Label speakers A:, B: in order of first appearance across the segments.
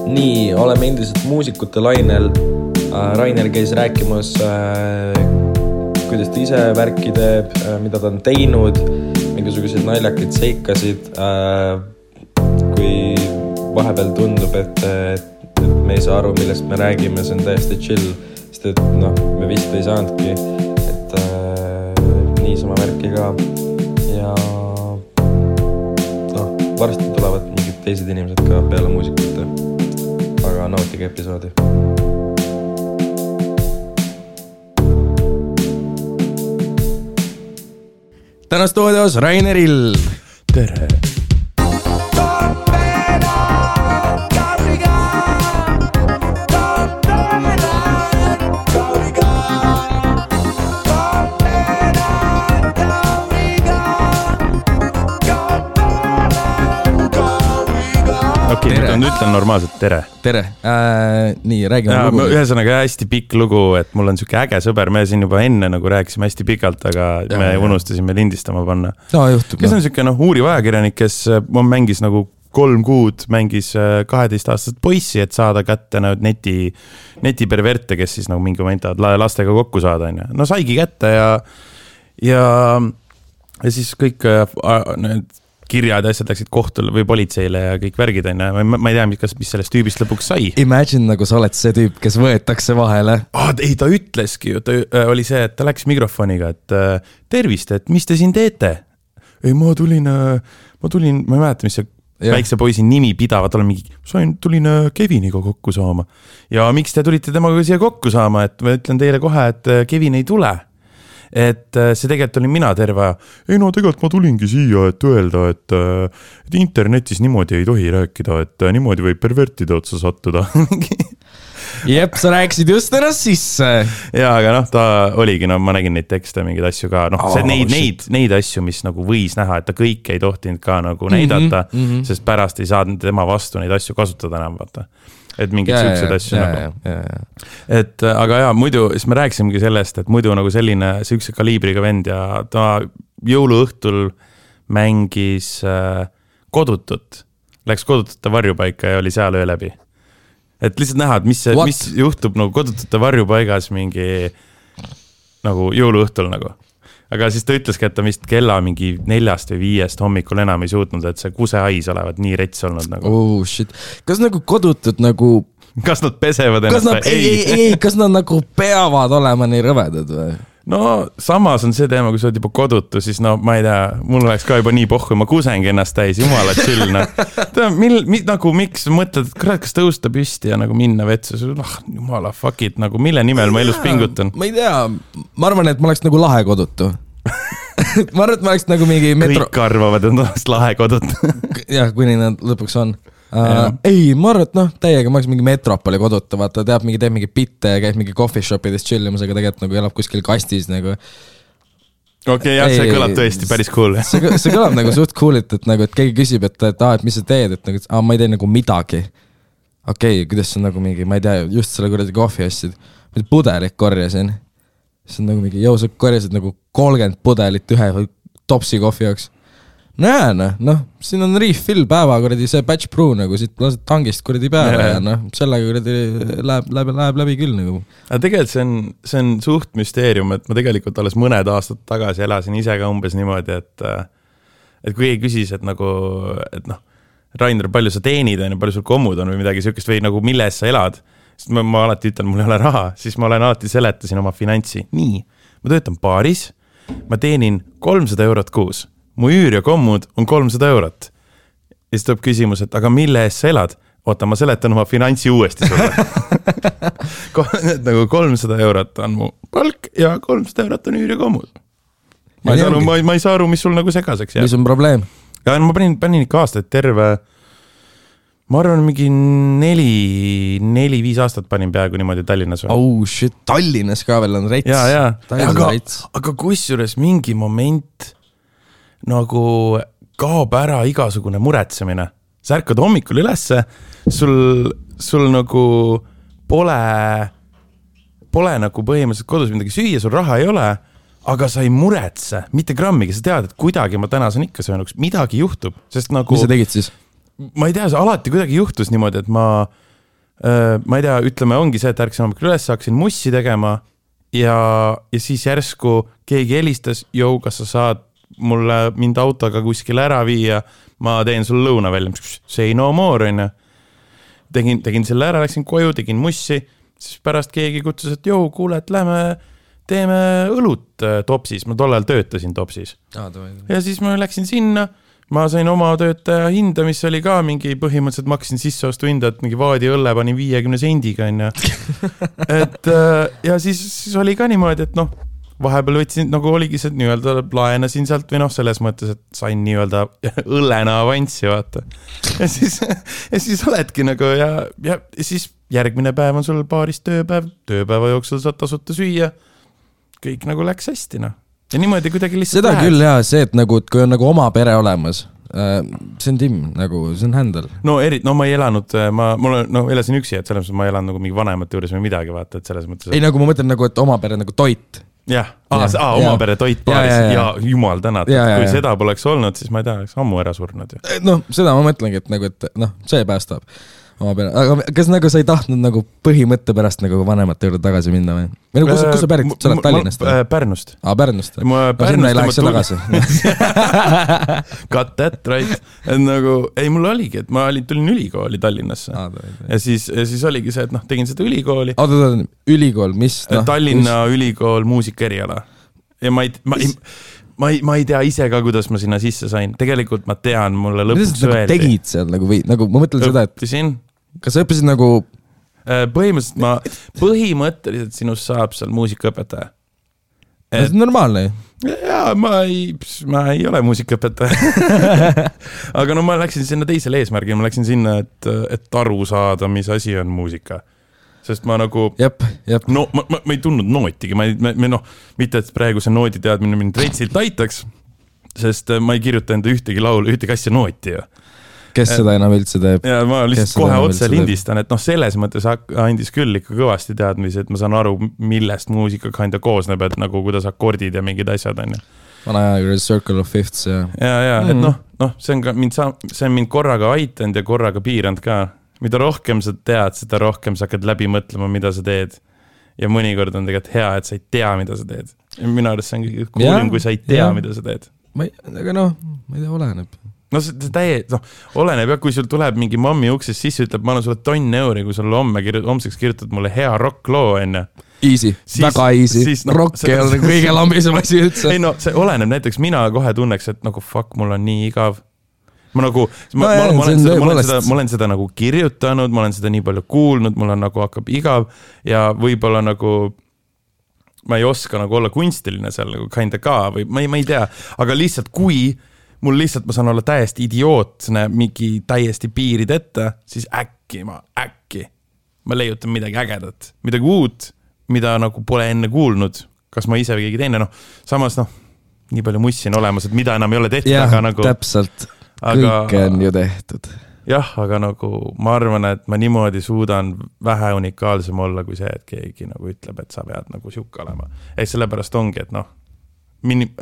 A: Nii, oleme endiselt muusikute lainel. Rainer käis rääkimas, kuidas ta ise värki teeb, mida ta on teinud, mingisuguseid naljakaid seikasid. Kui vahepeal tundub, et me ei saa aru, millest me räägime, see on täiesti chill, sest et me vist ei saanudki, et niisama värki ka. Ja varsti tulevad mingid teised inimesed ka peale muusikute, aga nautige episoodi. Täna stuudios Raineril.
B: Tere. Okei, nüüd ütlen normaalselt tere.
A: Tere. Nii, räägime lugu.
B: Ühesõnaga hästi pikk lugu, et mul on siuke äge sõber, me siin juba enne nagu rääkisime hästi pikalt, aga me unustasime lindistama panna. Kes on siuke uuriv ajakirjanik, kes mängis nagu 3 kuud, mängis 12-aastast poissi, et saada kätte netiperverte, kes siis nagu mingi moment lastega kokku saada. No saigi kätte ja siis kõik need kirjad ja asjad läksid kohtule või politseile ja kõik värgid. Ma ei tea, mis sellest tüübist lõpuks sai.
A: Imagine, nagu sa oled see tüüp, kes võetakse vahele.
B: Ei, ta ütleski ju, ta oli see, et ta läks mikrofoniga, et tervist, et mis te siin teete? Ei, ma tulin, ma ei mäleta, mis see väikse poisi nimi pidavat olla mingi, tulin Keviniga kokku saama. Ja miks te tulite temaga siia kokku saama, et ma ütlen teile kohe, et Kevin ei tule. Et see tegelikult olin mina terve. Ei tegelikult ma tulingi siia, et öelda, et internetis niimoodi ei tohi rääkida, et niimoodi võib pervertide otsa sattuda.
A: Jep, sa rääkisid just ennast sisse.
B: Ja, aga ta oligi, ma nägin neid tekste, mingeid asju ka. Neid asju, mis nagu võis näha, et ta kõik ei tohtinud ka nagu näidata, sest pärast ei saanud tema vastu neid asju kasutada enam, vaata. Et mingid siuksed asju nagu. Et, aga muidu, siis me rääkisimegi sellest, et muidu nagu selline siukse kaliibriga vend ja ta jõuluõhtul mängis kodutut. Läks kodutute varjupaika ja oli seal öö läbi. Et lihtsalt näha, et mis juhtub nagu kodutute varjupaigas mingi nagu jõuluõhtul nagu. Aga siis ta ütleski, et ta vist kella mingi 4 või 5 hommikul enam ei suutnud, et see kusehais olevat nii rets olnud nagu.
A: Oh shit. Kas nagu kodutud nagu...
B: Kas nad pesevad ennast?
A: Ei, kas nad nagu peavad olema nii rõvedad või?
B: No samas on see teema, kui sa oled juba kodutu, siis ma ei tea, mul oleks ka juba nii pohku, ma kusengi ennast täis, jumala chill. Nagu miks mõtled, et kas tõusta püsti ja nagu minna vetsu, jumala fuck it, nagu mille nimel ma elus pingutan?
A: Ma ei tea, ma arvan, et ma oleks nagu lahe kodutu. Ma arvan, et ma oleks nagu mingi
B: Kõik arvavad, et oleks lahe kodutu.
A: Jah, kuni nad lõpuks on. Ei, ma arvan, et täiega ma oleks mingi metropoli koduta, vaata, teeb mingi bitte ja käib mingi coffee shopides chillimas, aga tegelikult nagu elab kuskil kastis nagu.
B: Okei, jah, see kõlab tõesti päris cool.
A: See kõlab nagu suht cool'it, et keegi küsib, et mis sa teed, et nagu, ma ei tee nagu midagi. Okei, kuidas see on nagu mingi, ma ei tea, just selle kuradi kohvi asjad. Ma pudelit korjasin. See on nagu mingi, sa korjasid nagu 30 pudelit ühe topsi kohvi jaoks. Siin on refill päeva, kuradi see batch brew nagu, siit lased tangist kuradi päeva ja sellega kuradi läheb läbi küll nagu.
B: Aga tegelikult see on suht müsteerium, et ma tegelikult alles mõned aastad tagasi elasin ise ka umbes niimoodi, et kui ei küsis, et nagu, et Rainer, palju sa teenid, palju sul kommud on või midagi siukest või nagu mille eest sa elad, sest ma alati ütlen, mul ei ole raha, siis ma olen alati seletasin oma finantsi. Nii, ma töötan baaris, ma teenin 300 eurot kuus. Mu üür ja kommud on 300 eurot. Ja siis tuleb küsimus, et aga mille eest sa elad? Oota, ma seletan oma finantsi uuesti sulle. Nagu 300 eurot on mu palk ja 300 eurot on üür ja kommud. Ma ei saa aru, mis sul nagu segaseks jääb.
A: Mis on probleem?
B: Ja ma panin ikka aastaid terve, ma arvan, mingi 4-5 aastat panin peaaegu niimoodi Tallinnas.
A: Oh shit, Tallinnas ka veel on rets.
B: Aga kusjuures mingi moment nagu kaob ära igasugune muretsemine. Sa ärkad hommikul ülesse, sul nagu pole nagu põhimõtteliselt kodus midagi süüa, sul raha ei ole, aga sa ei muretse, mitte grammigi, sa tead, et kuidagi ma täna saan ikka söönuks, midagi juhtub. Sest nagu,
A: mis sa tegid siis?
B: Ma ei tea, see alati kuidagi juhtus niimoodi, et ma ma ei tea, ütleme, ongi see, et ärksin hommikul üles, hakkasin mussi tegema ja siis järsku keegi helistas, jõu, kas sa saad mind autoga kuskil ära viia, ma teen sul lõuna välja, say no more, on ju. Tegin selle ära, läksin koju, tegin mussi, siis pärast keegi kutsus, et jõu, kuule, et lähme teeme õlut Topsis, ma tollal töötasin Topsis. Ja siis ma läksin sinna, ma sain oma töötaja hinda, mis oli ka mingi põhimõtteliselt maksin sisseostu hinda, et mingi vaadi õlle panin 50 sendiga, on ju. Ja siis oli ka niimoodi, et noh, vahepeal võtsin, nagu oligi see nii-öelda laenasin sealt või noh, selles mõttes, et sain nii-öelda õllena avanssi, vaata. Ja siis oledki nagu ja siis järgmine päev on sul baaris tööpäeva jooksul saad tasuta süüa. Kõik nagu läks hästi, noh. Ja niimoodi kuidagi lihtsalt
A: seda lähed. Küll jah, see, et nagu, et kui on nagu oma pere olemas, see on Tim, nagu see on händel.
B: No ma ei elanud, ma elasin üksi, et selles mõttes ma elan nagu mingi vanemate juures või midagi, vaata, et selles mõttes.
A: Ei, nagu ma mõtlen nagu, et oma pere nagu toit.
B: Jah, oma pere toit baaris ja jumal tänad, kui seda poleks olnud, siis ma ei tea, oleks ammu ära surnud.
A: Noh, seda ma mõtlengi, et nagu, et noh, see päästab oma pere. Aga kas nagu sa ei tahtnud nagu põhimõtte pärast nagu vanemate juurde tagasi minna või? Või nagu, kus sa pärit, sa oled Tallinnast?
B: Pärnust.
A: Pärnust. Sinna ei läheks tagasi.
B: Got that, right. Nagu, ei, mul oligi, et ma tulin ülikooli Tallinnasse. Ja siis oligi see, et noh, tegin seda ülikooli.
A: Ülikool, mis?
B: Tallinna ülikool muusikaeriala. Ja ma ei tea ise ka, kuidas ma sinna sisse sain. Tegelikult ma tean, mulle lõpuks öeldi.
A: Tegid seal nagu või nagu ma mõtlen seda, et kas sa õppisid nagu
B: põhimõtteliselt sinust saab seal muusikaõpetaja.
A: See on normaalne.
B: Jaa, ma ei ole muusikaõpetaja. Aga no ma läksin sinna teisele eesmärgile, ma läksin sinna, et aru saada, mis asi on muusika. Sest ma nagu, no ma ei tundnud nootigi, mitte et praegu see noodi teadmine mind reitsilt aitaks, sest ma ei kirjuta enda ühtegi laulu, ühtegi asja nooti.
A: Kes seda enam üldse teeb?
B: Ja ma lihtsalt kohe otse lindistan, et noh, selles mõttes andis küll ikka kõvasti teadmisi, et ma saan aru, millest muusika kinda koosneb, et nagu kuidas akordid ja mingid asjad on.
A: Vana aja Circle of Fifths ja.
B: Ja, et noh, see on mind korraga aitanud ja korraga piiranud ka. Mida rohkem sa tead, seda rohkem sa hakkad läbi mõtlema, mida sa teed. Ja mõnikord on tegelikult hea, et sa ei tea, mida sa teed. Ja minu arust see on kuulim, kui sa ei tea, mida sa teed.
A: Aga noh, ma ei tea, oleneb.
B: No see oleneb, ja kui sul tuleb mingi mammi uksest sisse, ütleb, ma annan sulle €1, kui sulle homseks kirjutad mulle hea rockloo enne.
A: Easy, väga easy. Rock ei ole kõige lambisem asi üldse.
B: Ei no, see oleneb, näiteks mina kohe tunneks, et nagu fuck, mul on nii igav. Ma olen seda nagu kirjutanud, ma olen seda nii palju kuulnud, mul on nagu hakkab igav ja võib-olla nagu ma ei oska nagu olla kunstiline seal nagu kinda ka või ma ei tea, aga lihtsalt kui mul lihtsalt ma saan olla täiesti idiootne mingi täiesti piirid ette, siis äkki ma leiutan midagi ägedat, midagi uut, mida nagu pole enne kuulnud, kas ma ise või keegi teine, samas nii palju mussi on olemas, et mida enam ei ole tehtud, aga nagu
A: täpselt. Kõike on ju tehtud.
B: Jah, aga nagu ma arvan, et ma niimoodi suudan vähe unikaalsem olla kui see, et keegi nagu ütleb, et sa pead nagu siuke olema. Sellepärast ongi, et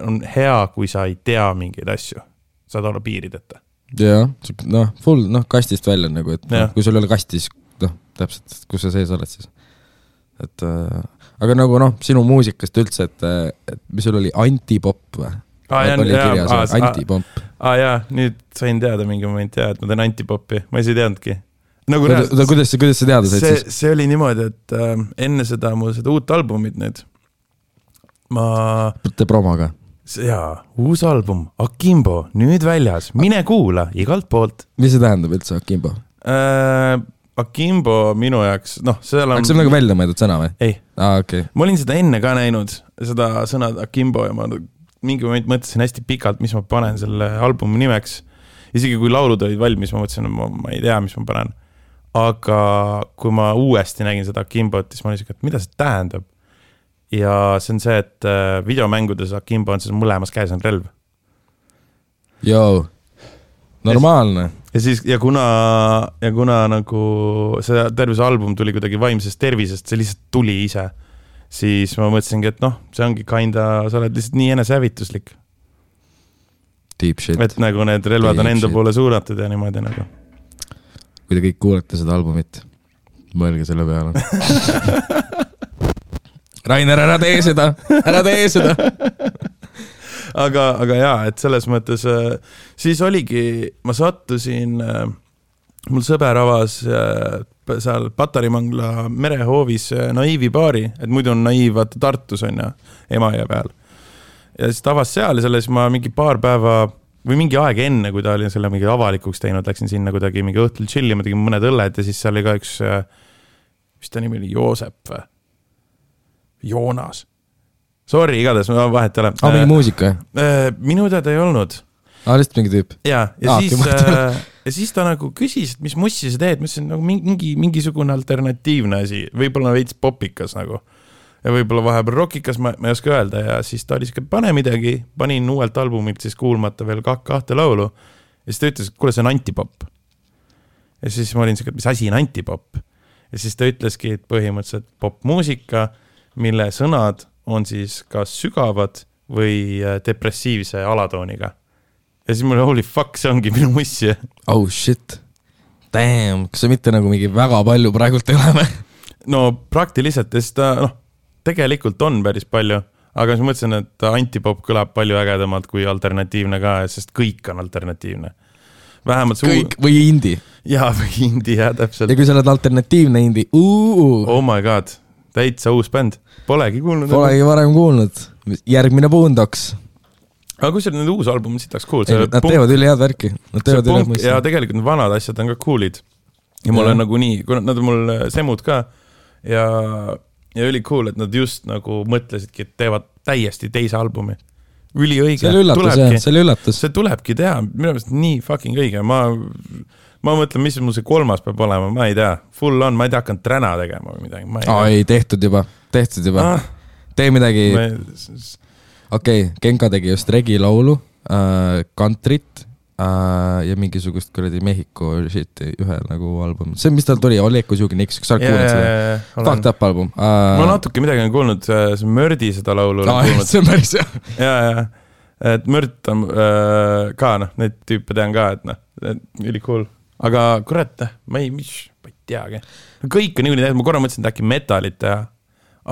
B: on hea, kui sa ei tea mingeid asju. Saad olla piirideta.
A: Jah, full, kastist välja nagu, et kui sul ei ole kastis, täpselt, kus sa sees oled siis. Aga nagu sinu muusikast üldse, et mis sul oli antipop või? Oli kirjas antipop.
B: Jaa, nüüd sain teada mingi moment, et ma teen antipopi, ma ei teadnudki.
A: Kuidas sa teada said siis?
B: See oli niimoodi, et enne seda uut albumit nüüd
A: Te promoga?
B: Jaa, uus album, Akimbo, nüüd väljas, mine kuula igalt poolt.
A: Mis see tähendab üldse Akimbo?
B: Akimbo minu jaoks, seal on...
A: Aga see on nagu välja mõeldud sõna või?
B: Ei.
A: Okay.
B: Ma olin seda enne ka näinud, seda sõna Akimbo ja ma mingi moment mõtlesin hästi pikalt, mis ma panen selle albumi nimeks. Isegi kui laulud olid valmis, ma mõtlesin, et ma ei tea, mis ma panen. Aga kui ma uuesti nägin seda Akimbot, siis ma olin, et mida see tähendab? Ja see on see, et videomängudes Akimbo on mõlemas käes on relv.
A: Joo, normaalne.
B: Ja kuna nagu see terve album tuli kuidagi vaimsest tervisest, see lihtsalt tuli ise. Siis ma mõtlesingi, et see ongi kinda, sa oled lihtsalt nii enesehävituslik.
A: Deep shit.
B: Et nagu need relvad on enda poole suunatud ja niimoodi nagu.
A: Kui te kõik kuulete seda albumit, Mõelge selle peale. Rainer, ära tee seda.
B: aga jaa, et selles mõttes siis oligi, ma sattusin, mul sõber avas seal Patarimangla merehoovis Naiivi baari, et muidu on Naiiv vaata Tartus on ja Emajõe peal. Ja siis ta avas seal ja selles ma mingi paar päeva või mingi aeg enne, kui ta oli selle mingi avalikuks teinud, läksin sinna kuidagi mingi õhtul chillima, tegin mõned õlled ja siis seal oli ka üks, mis ta nimi oli, Joosep või? Joonas. Sorry, igatahes, ma vahet ei ole.
A: Mingi muusika?
B: Minu teada ei olnud.
A: Lihtsalt mingi tüüp?
B: Ja siis ta nagu küsis, et mis mussi sa teed, mis on nagu mingisugune alternatiivne asi, võib-olla veits popikas nagu. Ja võib-olla vahepeal rockikas, ma ei oska öelda ja siis ta oli siuke, pane midagi, panin uuelt albumilt siis kuulmata veel kahte laulu ja siis ta ütles, et kuule, see on antipop. Ja siis ma olin siuke, et mis asi on antipop? Ja siis ta ütleski, et põhimõtteliselt popmuusika, mille sõnad on siis kas sügavad või depressiivse alatooniga. Ja siis mul holy fuck, see ongi minu mussi.
A: Oh shit. Damn, kas see mitte nagu mingi väga palju praegult ei ole?
B: No praktiliselt, sest ta tegelikult on päris palju, aga siis mõtlesin, et antipop kõlab palju ägedamalt kui alternatiivne ka, sest kõik on alternatiivne. Vähemalt
A: kõik või indie.
B: Jaa, või indie, jah, täpselt.
A: Ja kui sa oled alternatiivne indie,
B: Oh my god. Täitsa uus bänd. Polegi kuulnud.
A: Polegi varem kuulnud. Järgmine Boondocks.
B: Aga kui see need uus album sitaks cool.
A: Nad teevad üli head värki.
B: Ja tegelikult need vanad asjad on ka coolid. Ja mul on nagu nii, kui nad on mul semud ka ja üli cool, et nad just nagu mõtlesidki, et teevad täiesti teise albumi. Üli õige.
A: See oli üllatus.
B: See tulebki teha. Minu meelest nii fucking õige. Ma mõtlen, mis mul see kolmas peab olema, ma ei tea. Full on, ma ei tea, hakkan träna tegema või midagi.
A: Ei, tehtud juba. Tee midagi. Okei, Genka tegi just regi laulu, kantrit ja mingisugust kuradi Mehhiko shit ühe nagu album. See, mis tal tuli, Oleko Siugi Niks, kas sa oled kuulnud seda? Fucked up album.
B: Ma natuke midagi on kuulnud, see Mördi seda laulu.
A: See on päris jah.
B: Ja. Et Mört on ka, neid tüüpe tean ka, et üli cool. Aga kurat, ma ei teagi. Kõik on niikuinii, ma korra mõtlesin, et äkki metalit teha,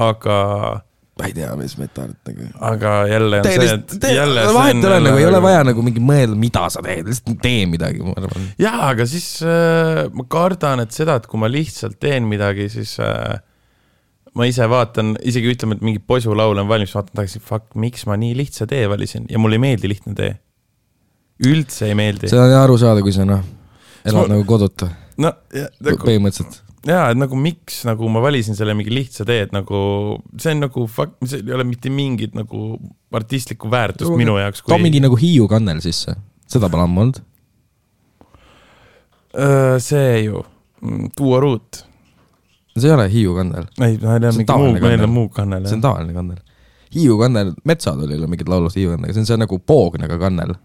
B: aga...
A: Ma ei tea, mis metalit nagu...
B: Aga jälle on see, et...
A: Vahet ei ole, nagu ei ole vaja nagu mingi mõelda, mida sa teed, lihtsalt tee midagi.
B: Jaa, aga siis ma kardan, et seda, et kui ma lihtsalt teen midagi, siis ma ise vaatan, isegi ütleme, et mingi posu laul on valmis, vaatan tagasi, fuck, miks ma nii lihtsa tee valisin ja mul ei meeldi lihtne tee. Üldse ei meeldi.
A: See on aru saada, kui sa elad nagu koduta. Põhimõtteliselt.
B: Jaa, et nagu miks nagu ma valisin selle mingi lihtsa tee, et nagu see on nagu see ei ole mitte mingit nagu artistlikku väärtust minu jaoks.
A: Too mingi nagu Hiiu kannel sisse. Seda pole ammu olnud?
B: See ju. Duo Root.
A: See ei ole Hiiu kannel.
B: Ei, meil on muu kannel.
A: See on tavaline kannel. Hiiu kannel, Metsad oli mingid laulust Hiiu kannel. See on nagu poognega kannel.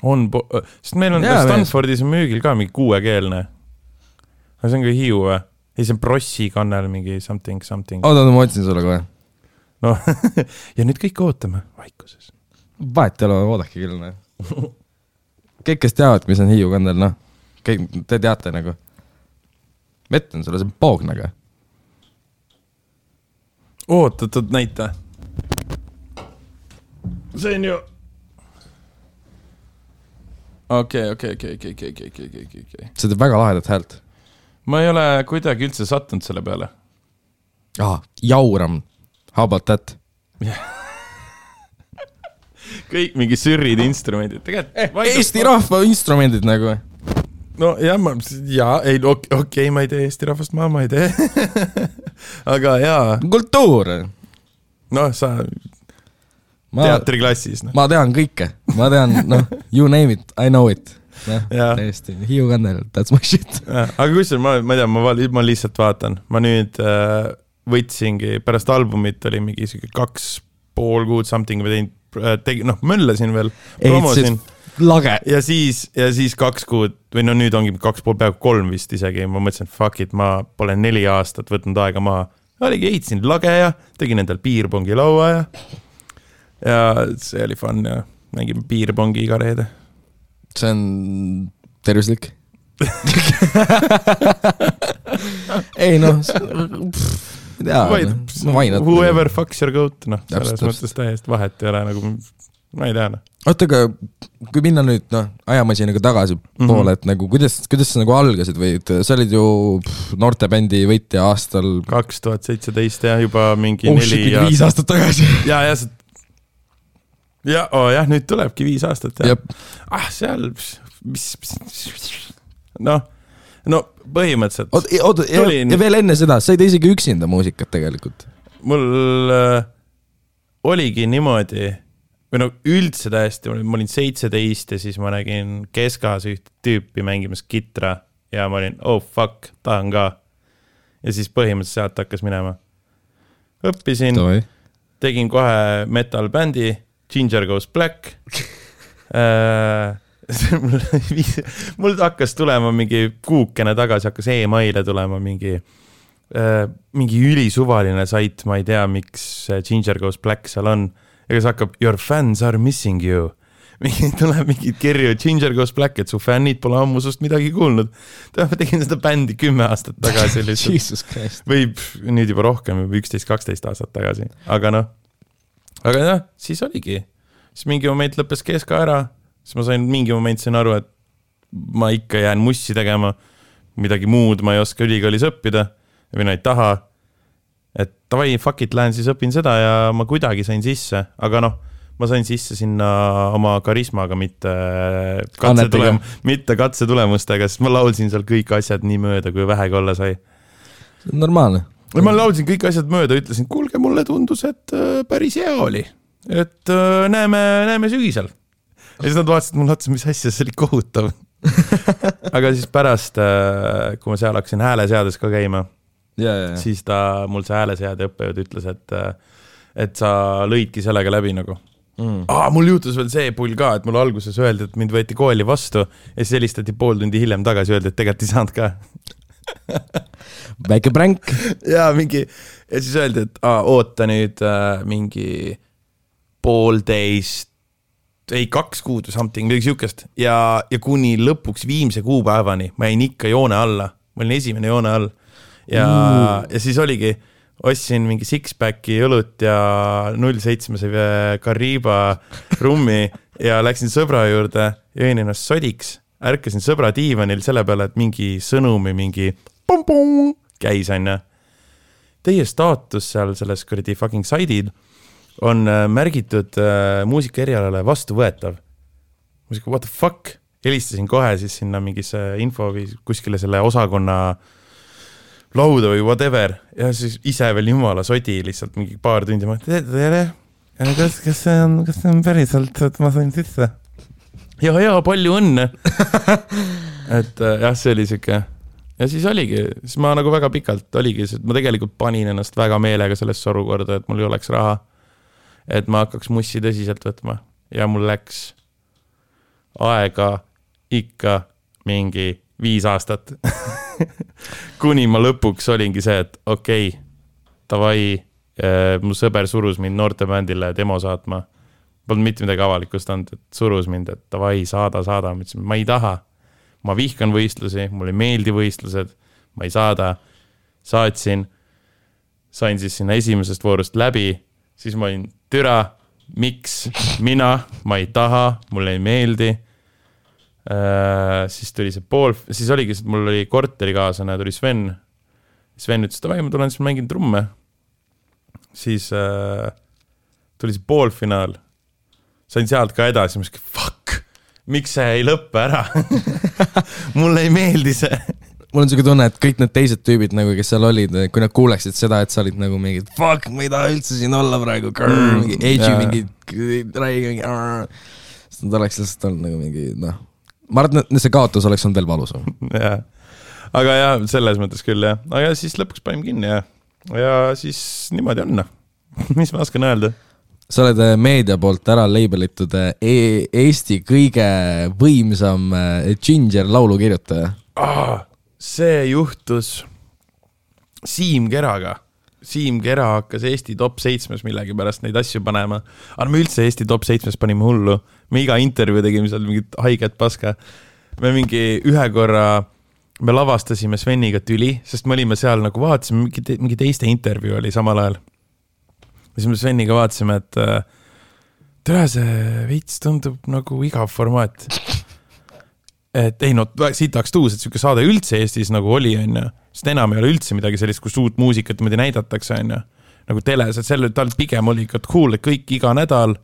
A: Sest meil on Stanfordis müügil ka mingi 6-keelne. Aga see on ka Hiiu või? Ei, see on Brossi kannel mingi something. Oota, ma otsin sulle kohe. No, ja nüüd kõik ootame vaikuses. Vahet ei ole, oodake küll. Kõik, kes teavad, mis on Hiiu kannel, te teate nagu. Metlen sulle, see on poognega. Oot, näita. See on ju... Okei. See teeb väga lahedat häält. Ma ei ole kuidagi üldse sattunud selle peale. Jauram. How about that? Kõik mingi sürrid instrumendid. Eesti rahva instrumendid nagu. No okei, ma ei tee Eesti rahvast, ma ei tee. Aga jaa. Kultuur. No sa... teatriklassis. Ma tean kõike. Ma tean, you name it, I know it. Täiesti, Hiiu kannel, that's my shit. Aga kus ma tean, ma lihtsalt vaatan. Ma nüüd võtsingi, pärast albumit oli mingi 2,5 kuud something või möllasin veel, promosin. Lage. Ja siis 2 kuud, või nüüd ongi 2,5 peaaegu 3 vist isegi. Ma mõtlesin, fuck it, ma pole 4 aastat võtnud aega maha. Oligi eitsin lage ja tegin endal piirpongi laua ja see oli fun ja mängime piirpongi iga reede. See on tervislik? ei noh,
B: whoever fucks your goat, noh, selles mõttes täiesti vahet ei ole nagu, ma ei tea, noh.
A: Oota, aga kui minna nüüd, noh, ajamasinaga tagasi poole, et nagu, kuidas sa nagu algasid või, sa olid ju noortebändi võitja aastal
B: 2017 ja juba mingi 4
A: 5 aastat tagasi.
B: jah, nüüd tulebki 5 aastat, jah. Seal, no põhimõtteliselt.
A: Oota, ja veel enne seda, sa ei tee isegi üksinda muusikat tegelikult.
B: Mul oligi niimoodi, või no üldse täiesti, ma olin 17 ja siis ma nägin Keskas üht tüüpi mängimas kitra ja ma olin, oh fuck, tahan ka. Ja siis põhimõtteliselt sealt hakkas minema. Õppisin, tegin kohe metal bändi, Ginger Goes Black. Mul hakkas tulema mingi kuukene tagasi, hakkas e-maile tulema mingi ülisuvaline sait, ma ei tea, miks Ginger Goes Black seal on. Ja kes hakkab, your fans are missing you. Tuleb mingid kirju, Ginger Goes Black, et su fännid pole ammu sust midagi kuulnud. Ma tegin seda bändi 10 aastat tagasi.
A: Jesus Christ.
B: Või nüüd juba rohkem, 11-12 aastat tagasi. Aga siis oligi. Siis mingi moment lõppes Keska ära. Siis ma mingi moment sain aru, et ma ikka jään mussi tegema. Midagi muud ma ei oska ülikoolis õppida. Või ei taha. Et tavai, fuck it, lähen siis õpin seda ja ma kuidagi sain sisse. Aga ma sain sisse sinna oma karismaga, mitte katsetulemustega, sest ma laulsin seal kõik asjad nii mööda, kui vähegi olla sai.
A: See on normaalne.
B: Ma laulsin kõik asjad mööda, ütlesin, kuulge, mulle tundus, et päris hea oli. Et näeme sügisel. Ja siis nad vaatasid mul otsa, mis asja, see oli kohutav. Aga siis pärast, kui ma seal hakkasin hääleseades ka käima, siis mul see hääleseade õppejõud ütles, et sa lõidki sellega läbi nagu. Mul juhtus veel see pull ka, et mul alguses öeldi, et mind võeti kooli vastu ja siis helistati pool tundi hiljem tagasi, öeldi, et tegelikult ei saanud ka.
A: Väike pränk.
B: Ja siis öeldi, et oota nüüd mingi 2 kuud või something, midagi siukest. Ja kuni lõpuks viimse kuupäevani ma jäin ikka joone alla. Ma olin esimene joone all. Ja siis oligi, ostsin mingi six-packi õlut ja 0,7 Kariba rummi ja läksin sõbra juurde, jõin ennast sodiks, ärkasin sõbra diivanil selle peale, et mingi sõnumi, mingi pum-pum käis aina. Teie staatus seal selles kuradi fucking saidid on märgitud muusika erialale vastuvõetav. Muusika, what the fuck? Helistasin kohe siis sinna mingisse info või kuskile selle osakonna lauda või whatever. Ja siis ise veel jumala sodi lihtsalt mingi paar tundi. Kas see on päriselt, et ma sain sisse? Ja, palju õnne. Et jah, see oli siuke. Ja siis oligi, siis ma nagu väga pikalt oligi, sest ma tegelikult panin ennast väga meelega sellesse olukorda, et mul ei oleks raha. Et ma hakkaks mussi tõsiselt võtma ja mul läks aega ikka mingi 5 aastat. Kuni ma lõpuks olingi see, et okei, tavai, mu sõber surus mind noortebändile demo saatma. Polnud mitte midagi avalikustanud, et surus mind, et tavai, saada. Ma ütlesin, ma ei taha. Ma vihkan võistlusi, mulle ei meeldi võistlused, ma ei saada. Saatsin, sain siis sinna esimesest voorust läbi, siis ma olin türa, miks mina, ma ei taha, mulle ei meeldi. Siis tuli see siis oligi, mul oli korterikaaslane, tuli Sven. Sven ütles, et ma tulen siis mängin trumme. Siis tuli see poolfinaal. Sain sealt ka edasi, ma ütlesin, fuck, miks see ei lõppe ära? Mulle ei meeldi see.
A: Mul on selline tunne, et kõik need teised tüübid, nagu, kes seal olid, kui nad kuuleksid seda, et sa olid nagu mingi fuck, ma ei taha üldse siin olla praegu, mingi edgy, mingi räägi, siis nad oleks lihtsalt olnud nagu mingi, ma arvan, et see kaotus oleks olnud veel valusam.
B: Ja. Aga jah, selles mõttes küll, jah. Aga siis lõpuks panim kinni ja siis niimoodi on. Mis ma oskan öelda?
A: Sa oled meedia poolt ära labelitud Eesti kõige võimsam Ginger laulu kirjutaja.
B: See juhtus Siim Keraga. Siim Kera hakkas Eesti top 7 millegi pärast neid asju panema. Aga me üldse Eesti top 7 panime hullu. Me iga intervjuu tegime seal mingit haiget paska. me mingi ühe korra, me lavastasime Sveniga tüli, sest me olime seal nagu vaatasime, mingi teiste intervjuu oli samal ajal. Ja siis me Sveniga vaatasime, et tere, see veits tundub nagu igav formaat. Et ei, no siit tahaks tuus, et siuke saade üldse Eestis nagu oli, on. Sest enam ei ole üldse midagi sellist, kus uut muusikat näidatakse, on. Nagu teles, et selle tal pigem oli ikka cool, et kõik iga nädal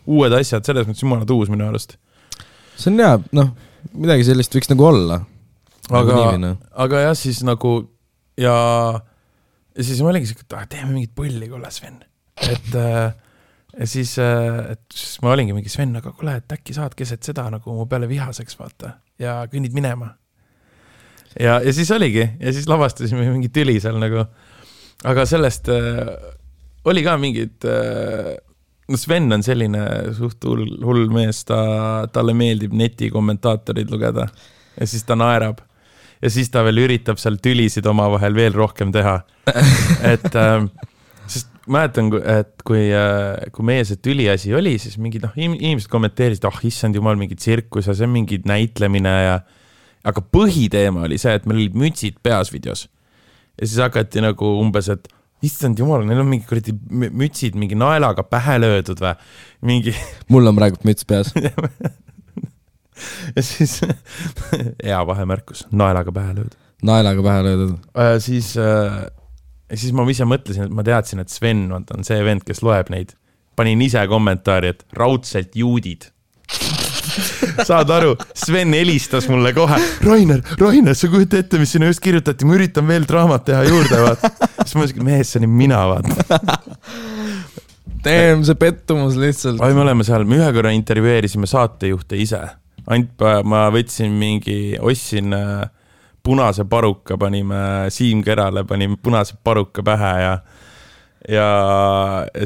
B: uued asjad, selles mõttes jumala tuus minu arust.
A: See on hea, noh, midagi sellist võiks nagu olla.
B: Aga jah, siis nagu ja siis ma olingi siuke, et teeme mingit põlli, kuule Sven. Ja siis ma olingi mingi Sven, aga kuule, et äkki saad keset seda nagu mu peale vihaseks vaata ja kõnnid minema. Ja siis oligi, ja siis lavastasime mingi tüli seal nagu, aga sellest oli ka mingid, no Sven on selline suht hull mees, talle meeldib netikommentaatorid lugeda ja siis ta naerab ja siis ta veel üritab seal tülisid oma vahel veel rohkem teha. Et sest mäletan, et kui meie see tüliasi oli, siis mingid inimesed kommenteerisid, issand jumal, mingi tsirkus ja see on mingi näitlemine aga põhiteema oli see, et meil olid mütsid peas videos. Ja siis hakati nagu umbes, et issand jumal, neil on mingi mütsid mingi naelaga pähe löödud või mingi...
A: Mul on praegu müts peas.
B: Ja siis hea vahemärkus, naelaga pähe löödud.
A: Naelaga pähe löödud.
B: Siis ma ise mõtlesin, et ma teadsin, et Sven on see vend, kes loeb neid. Panin ise kommentaari, et raudselt juudid. Saad aru, Sven helistas mulle kohe. Rainer, sa kujuta ette, mis sinna just kirjutati, ma üritan veel draamat teha juurde, vaat. Siis ma mõtlesin, mees, see on mina, vaat.
A: Teem, see pettumus lihtsalt.
B: Me oleme seal, me ühe korra intervjueerisime saatejuhte ise. Ma võtsin ostsin punase paruka, panime Siim Kerale, panime punase paruka pähe ja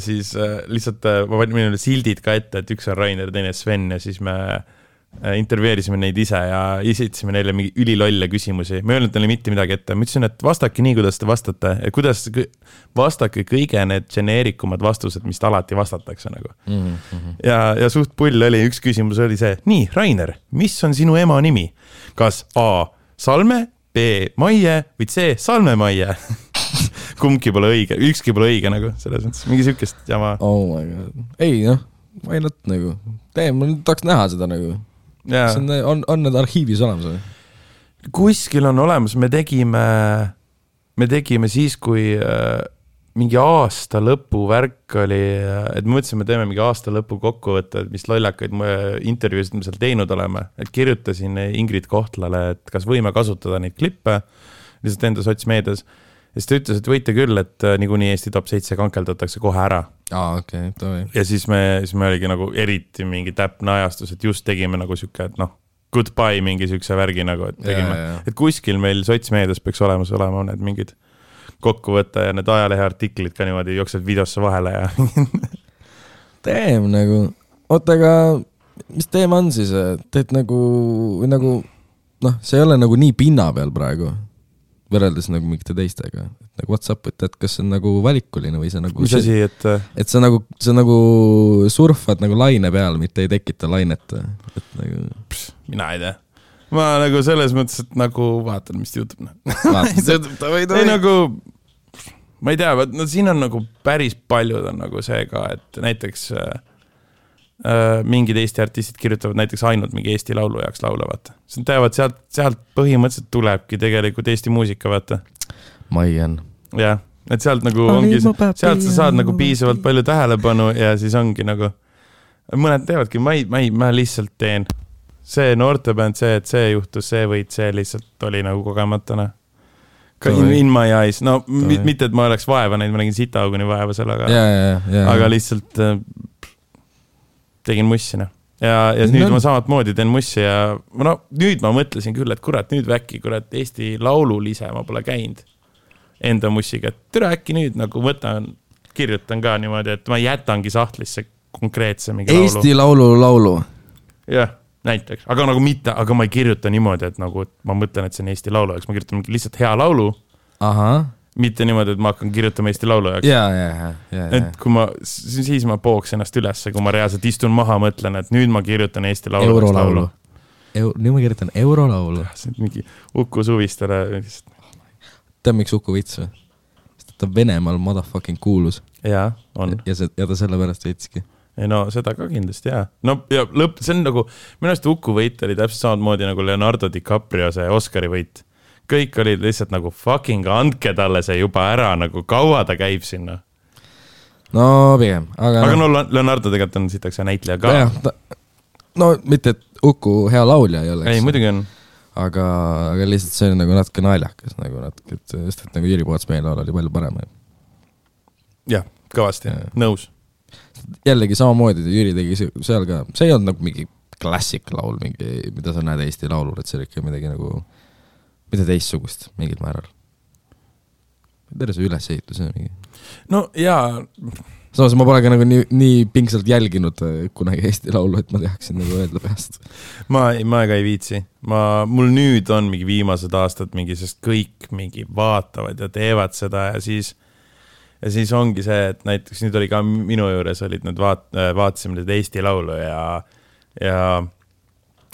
B: siis lihtsalt ma panin sildid ka ette, et üks on Rainer, teine Sven ja siis me intervjueerisime neid ise ja esitasime neile mingi ülilolle küsimusi. Me ei öelnud neile mitte midagi ette. Ma ütlesin, et vastake nii, kuidas te vastate. Kuidas vastake kõige need geneerikumad vastused, mis alati vastatakse nagu. Ja suht pull oli, üks küsimus oli see, nii, Rainer, mis on sinu ema nimi? Kas A. Salme, B. Maie või C. Salme Maie? Kumbki pole õige, ükski pole õige nagu, selles mõttes, mingi sükest jama.
A: Oh my god. Ei, why not nagu. Ma tahaks näha seda nagu. On need arhiivis olemas või?
B: Kuskil on olemas, me tegime siis, kui mingi aasta lõpu värk oli, et me mõtlesime, teeme mingi aasta lõpu kokkuvõtte, mis lollakaid intervjuusid me seal teinud oleme, et kirjutasin Ingrid Kohtlale, et kas võime kasutada neid klippe lihtsalt enda sotsmeedias. Ja siis ta ütles, et võite küll, et niikuinii Eesti top 7 kankeldatakse kohe ära.
A: Okay,
B: ja siis me oligi nagu eriti mingi täpne ajastus, et just tegime nagu siuke, et goodbye mingi siukse värgi nagu, et tegime. Et kuskil meil sotsmeedias peaks olema need mingid kokkuvõtte ja need ajalehe artiklid ka niimoodi jooksed videosse vahele ja
A: Teem nagu, aga mis teema on siis, et nagu see ei ole nagu nii pinna peal praegu võrreldes nagu mingite teistega. Nagu what's up, et kas see on nagu valikuline või see nagu...
B: Mis asi,
A: et sa nagu surfad nagu laine peal, mitte ei tekita lainet. Et nagu...
B: mina ei tea. Ma nagu selles mõttes, et nagu vaatan, mis juhtub. Ei nagu... Ma ei tea, siin on nagu päris paljud on nagu see ka, et näiteks mingid Eesti artistid kirjutavad näiteks ainult mingi Eesti laulu jaoks laule, vaata. See teavad, sealt põhimõtteliselt tulebki tegelikult Eesti muusika, vaata.
A: Maian.
B: Jah, et sealt nagu ongi, sealt sa saad nagu piisavalt palju tähelepanu ja siis ongi nagu, mõned teevadki, ma lihtsalt teen see noortebänd, et see juhtus, see võid, see lihtsalt oli nagu kogematana. In my eyes, mitte, et ma oleks vaeva neid, ma nägin sitauguni vaeva sellega, aga lihtsalt tegin mussina. Ja nüüd ma samat moodi teen mussi ja nüüd ma mõtlesin küll, et kurat, nüüd väkki, kurat, Eesti laululise ma pole käinud enda mussiga, et türa äkki nüüd nagu kirjutan ka niimoodi, et ma jätangi sahtlisse konkreetse mingi laulu.
A: Eesti laulu.
B: Jah, näiteks, aga nagu mitte, aga ma ei kirjuta niimoodi, et nagu ma mõtlen, et see on Eesti laulu jaoks, ma kirjutan lihtsalt hea laulu. Mitte niimoodi, et ma hakkan kirjutama Eesti laulu jaoks. Et kui siis ma pooks ennast ülesse, kui ma reaalselt istun maha, mõtlen, et nüüd ma kirjutan Eesti laulu.
A: nüüd ma kirjutan eurolaulu.
B: See on mingi Uku Suvistele.
A: Tead, miks Uku vits või? Sest ta Venemaal motherfucking kuulus.
B: Jaa, on.
A: Ja ta sellepärast võitski.
B: Ei no seda ka kindlasti, jaa. No ja see on nagu, minu arust Uku võit oli täpselt samamoodi nagu Leonardo DiCaprio see Oscari võit. Kõik olid lihtsalt nagu fucking andke talle see juba ära, nagu kaua ta käib sinna.
A: No pigem.
B: Aga no Leonardo tegelikult on sitaks ja näitleja ka.
A: No mitte, et Uku hea laulja ei oleks.
B: Ei, muidugi on.
A: Aga lihtsalt see on nagu natuke naljakas, sest et nagu Jüri Poots meie laul oli palju parem.
B: Jah, kõvasti, nõus.
A: Jällegi samamoodi, Jüri tegi seal ka, see ei olnud nagu mingi klassik laul, mingi, mida sa näed Eesti laulul, et see oli ikka midagi nagu, mida teistsugust mingil määral. Terve see ülesehitus on mingi. No jaa. Samas ma pole ka nagu nii pingsalt jälginud kunagi Eesti laulu, et ma teaksin nagu öelda peast.
B: Ma ka ei viitsi. Mul nüüd on mingi viimased aastad mingi, sest kõik mingi vaatavad ja teevad seda ja siis ongi see, et näiteks nüüd oli ka minu juures olid need vaatasime need Eesti laulu ja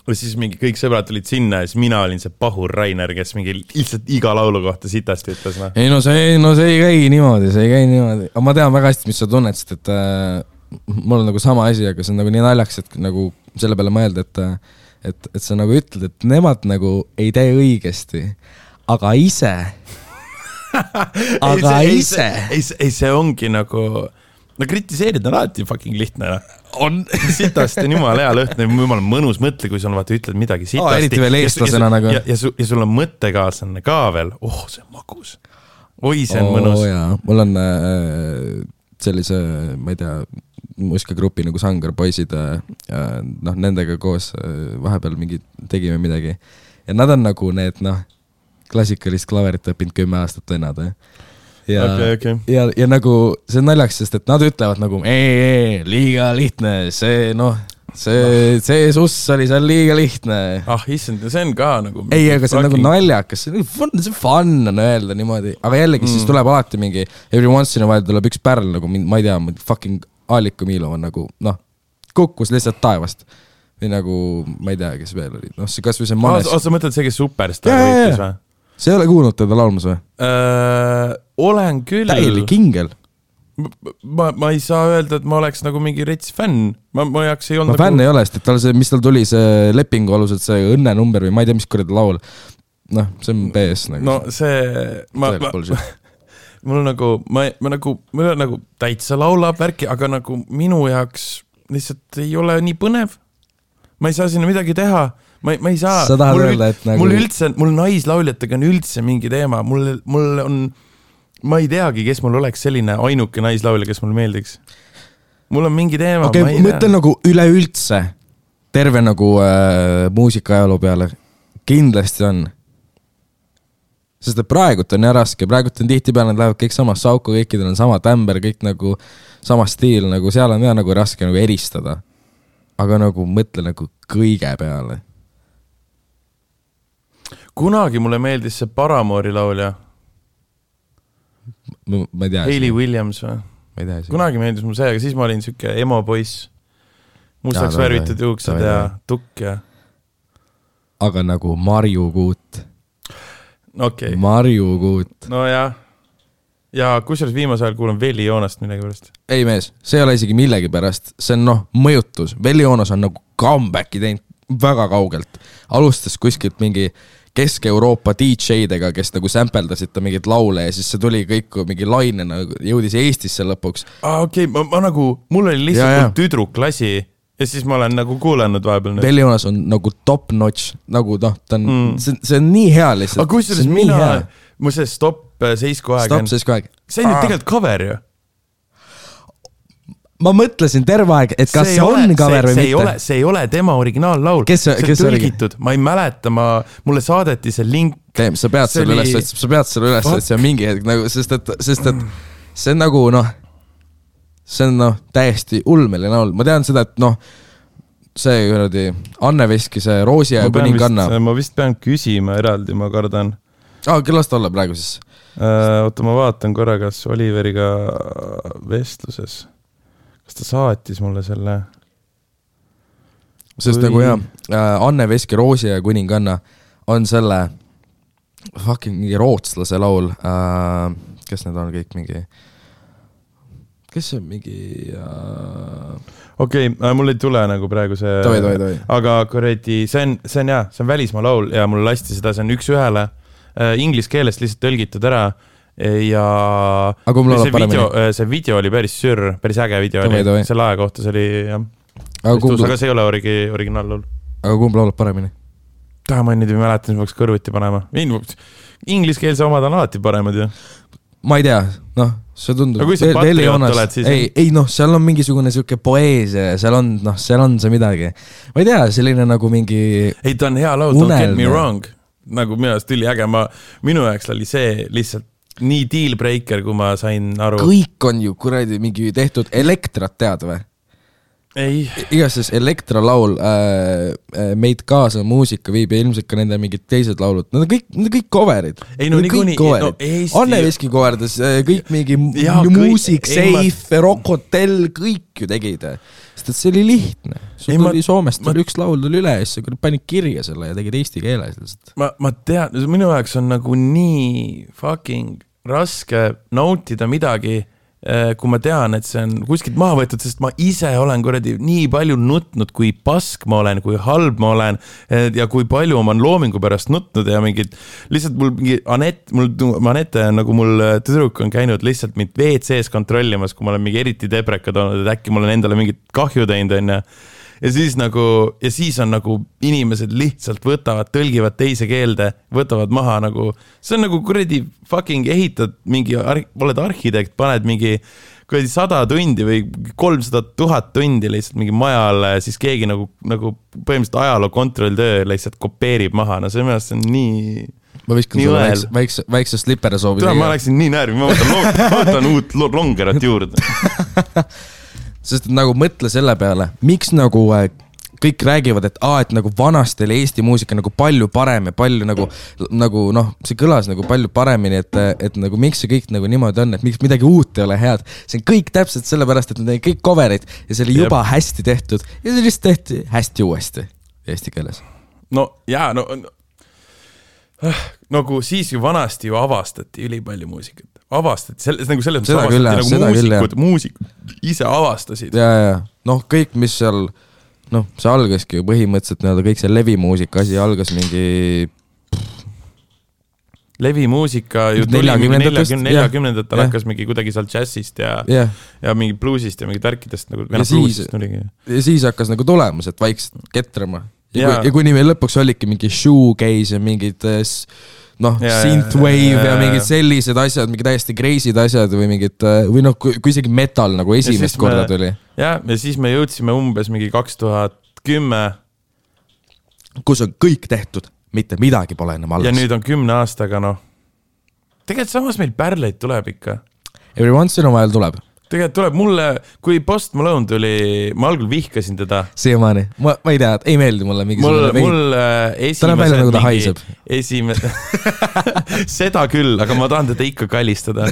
B: siis mingi kõik sõbrad tulid sinna ja siis mina olin see pahur Rainer, kes mingi lihtsalt iga laulu kohta sitasti ütles. No.
A: Ei, see ei käi niimoodi, Aga ma tean väga hästi, mis sa tunned, sest et mul on nagu sama asi, aga see on nagu nii naljaks, et nagu selle peale mõelda, et sa nagu ütled, et nemad nagu ei tee õigesti, aga ise
B: ei, see ongi nagu no kritiseerida on alati fucking lihtne.
A: On.
B: Sitast on jumala hea lõhn, jumala mõnus mõtle, kui sul vaata ütled midagi sitasti.
A: Eriti veel eestlasena nagu.
B: Ja sul on mõttekaaslane ka veel. See on magus. Oi, see on mõnus.
A: Jaa. Mul on sellise, ma ei tea, muusikagrupi nagu Sangar poisid, nendega koos vahepeal mingi tegime midagi. Ja nad on nagu need, klassikalist klaverit õppinud 10 aastat vennad.
B: Okay.
A: Ja nagu see on naljaks, sest et nad ütlevad nagu liiga lihtne, see suss oli seal liiga lihtne.
B: Issand, see on ka nagu
A: ei, aga see on nagu naljakas, see fun on öelda niimoodi, aga jällegi siis tuleb alati mingi every once in a while tuleb üks pärl nagu, ma ei tea, fucking Aaliku Miilov on nagu, kukkus lihtsalt taevast või nagu, ma ei tea, kes veel oli, see kas või see Manes.
B: Sa mõtled see, kes Superstar võitis või?
A: See ei ole kuulnud teda laulmas või?
B: Olen küll.
A: Täielik ingel.
B: Ma ei saa öelda, et ma oleks nagu mingi rets fänn. Ma jaks ei olnud
A: nagu... fänn ei ole, sest et mis tal tuli see lepingu aluselt, see õnnenumber või ma ei tea, mis korda laul. See on BS nagu.
B: No see... mul nagu täitsa laulab värki, aga nagu minu jaoks lihtsalt ei ole nii põnev. Ma ei saa sinna midagi teha. Ma ei saa, mul naislauljatega on üldse mingi teema, mul on, ma ei teagi, kes mul oleks selline ainuke naislaulja, kes mul meeldiks. Mul on mingi teema,
A: ma ei tea. Mõtlen nagu üleüldse, terve nagu muusikaajaloo peale, kindlasti on. Sest et praegult on nii raske, praegult on tihtipeale, nad lähevad kõik sama sauku, kõikidel on sama tämber, kõik nagu sama stiil, nagu seal on nagu raske nagu eristada. Aga nagu mõtle nagu kõige peale.
B: Kunagi mulle meeldis see Paramoori laulja.
A: Ma ei tea.
B: Hayley Williams või?
A: Ma ei tea.
B: Kunagi meeldis mul see, aga siis ma olin siuke emo poiss. Mustaks värvitud juuksed ja tukk ja... Aga
A: nagu Marju Kuut.
B: Okay.
A: Marju Kuut.
B: No jah. Ja kusjuures viimase ajal kuulen Veli Joonast midagi pärast.
A: Ei mees, see ei ole isegi millegi pärast. See on mõjutus. Veli Joonas on nagu comebacki teinud väga kaugelt. Alustas kuskilt mingi Kesk-Euroopa DJ-dega, kes nagu sampeldasid ta mingit laule ja siis see tuli kõik mingi lainena, jõudis Eestisse lõpuks.
B: Okei, ma nagu, mul oli lihtsalt tüdruklasi ja siis ma olen nagu kuulanud vahepeal.
A: Veli Joonas on nagu top notch, nagu ta on, see on nii hea lihtsalt.
B: Aga kusjuures mu see Stop Seisku aeg.
A: Stop Seisku aeg.
B: See on tegelikult cover ju.
A: Ma mõtlesin terve aeg, et kas see on cover või mitte.
B: See ei ole tema originaallaul. See on tõlgitud. Ma ei mäleta, mulle saadeti see link.
A: Sa pead selle üles, et see on mingi hetk, nagu, sest et see on nagu, see on täiesti ulmeline laul. Ma tean seda, et see kuradi Anne Veski, see Roosi ja Kuninganna.
B: Ma vist pean küsima eraldi, ma kardan.
A: Kellast olla praegu siis?
B: Oota, ma vaatan korra, kas Oliveriga vestluses. Kas ta saatis mulle selle?
A: sest nagu Anne Veski Roosi ja kuninganna on selle fucking mingi rootslase laul, kes need on kõik mingi, kes on mingi
B: Okei, mul ei tule nagu praegu see,
A: toi.
B: Aga kuradi, see on välismaa laul ja mul lasti seda, see on üks ühele inglise keelest lihtsalt tõlgitud ära ja see video oli päris äge video oli, selle aja kohta see oli jah, aga see ei ole originaallool.
A: Aga kumb laulab paremini?
B: Ma nüüd ei mäleta, mis peaks kõrvuti panema. Ingliskeelse omad on alati paremad ju.
A: Ma ei tea, see tundub.
B: Aga kui sa patriot oled, siis...
A: Ei, seal on mingisugune siuke poeesia, seal on see midagi. Ma ei tea, selline nagu mingi...
B: Ei, ta on hea laul, don't get me wrong. Nagu minu ajast tuli äge, minu ajaks oli see lihtsalt nii deal breaker, kui ma sain aru.
A: Kõik on ju kuradi mingi tehtud Elektrat tead või?
B: Ei.
A: Igases Elektra laul meid kaasa muusika viib ja ilmselt ka nende mingid teised laulud. Nad on kõik coverid.
B: Ei, no nii
A: Anne Veski coverdas kõik mingi Music Safe, Rock Hotel, kõik ju tegid. Sest see oli lihtne. Sul tuli Soomest üks laul tuli üle ja siis panid kirja selle ja tegid eesti keeles.
B: Ma tean, minu jaoks on nagu nii fucking raske nautida midagi, kui ma tean, et see on kuskilt maha võetud, sest ma ise olen kuradi nii palju nutnud, kui pask ma olen, kui halb ma olen ja kui palju ma olen loomingu pärast nutnud ja mingid, lihtsalt mul mingi Anette nagu mul tüdruk on käinud lihtsalt mind WC-s kontrollimas, kui ma olen mingi eriti debrekad olnud, et äkki mul on endale mingit kahju teinud ja siis on nagu inimesed lihtsalt võtavad, tõlgivad teise keelde, võtavad maha nagu, see on nagu kuradi fucking ehitad mingi, oled arhitekt, paned mingi kuradi 100 tundi või 300 000 tundi lihtsalt mingi majale, siis keegi nagu põhimõtteliselt ajaloo kontrolltöö lihtsalt kopeerib maha, no see mõelest on nii...
A: Ma viskan sulle väikse slipper soovi.
B: Ma läksin nii närvi, ma võtan uut longerat juurde.
A: Sest nagu mõtle selle peale, miks nagu kõik räägivad, et nagu vanasti oli Eesti muusika nagu palju parem ja palju nagu see kõlas nagu palju paremini, et nagu miks see kõik nagu niimoodi on, et miks midagi uut ei ole head. See on kõik täpselt sellepärast, et need on kõik coverid ja see oli juba hästi tehtud ja see lihtsalt tehti hästi uuesti eesti keeles.
B: Nagu siis ju vanasti ju avastati ülipalju muusikat. Selles mõttes muusikud ise avastasid.
A: Ja. Kõik, mis seal, see algaski ju põhimõtteliselt kõik see levimuusika asi algas mingi...
B: Levimuusika ju tuli 40-ndatel hakkas mingi kuidagi seal jazzist ja mingi bluesist ja mingi tärkidest.
A: Ja siis hakkas nagu tulemus, et vaikselt ketrama. Ja kuni meil lõpuks olidki mingi shoegaze ja mingid... synthwave ja mingid sellised asjad, mingi täiesti crazy'd asjad või mingid, või kui isegi metal nagu esimest korda tuli.
B: Ja siis me jõudsime umbes mingi 2010.
A: Kus on kõik tehtud, mitte midagi pole enam alles.
B: Ja nüüd on 10 aastaga, Tegelikult samas meil pärleid tuleb ikka.
A: Every once in a while tuleb.
B: Tegelikult tuleb mulle, kui Post Malone tuli, ma algul vihkasin teda.
A: Siiamaani, ma ei tea, ei meeldi mulle
B: mul
A: esimesed...
B: seda küll, aga ma tahan teda ikka kallistada.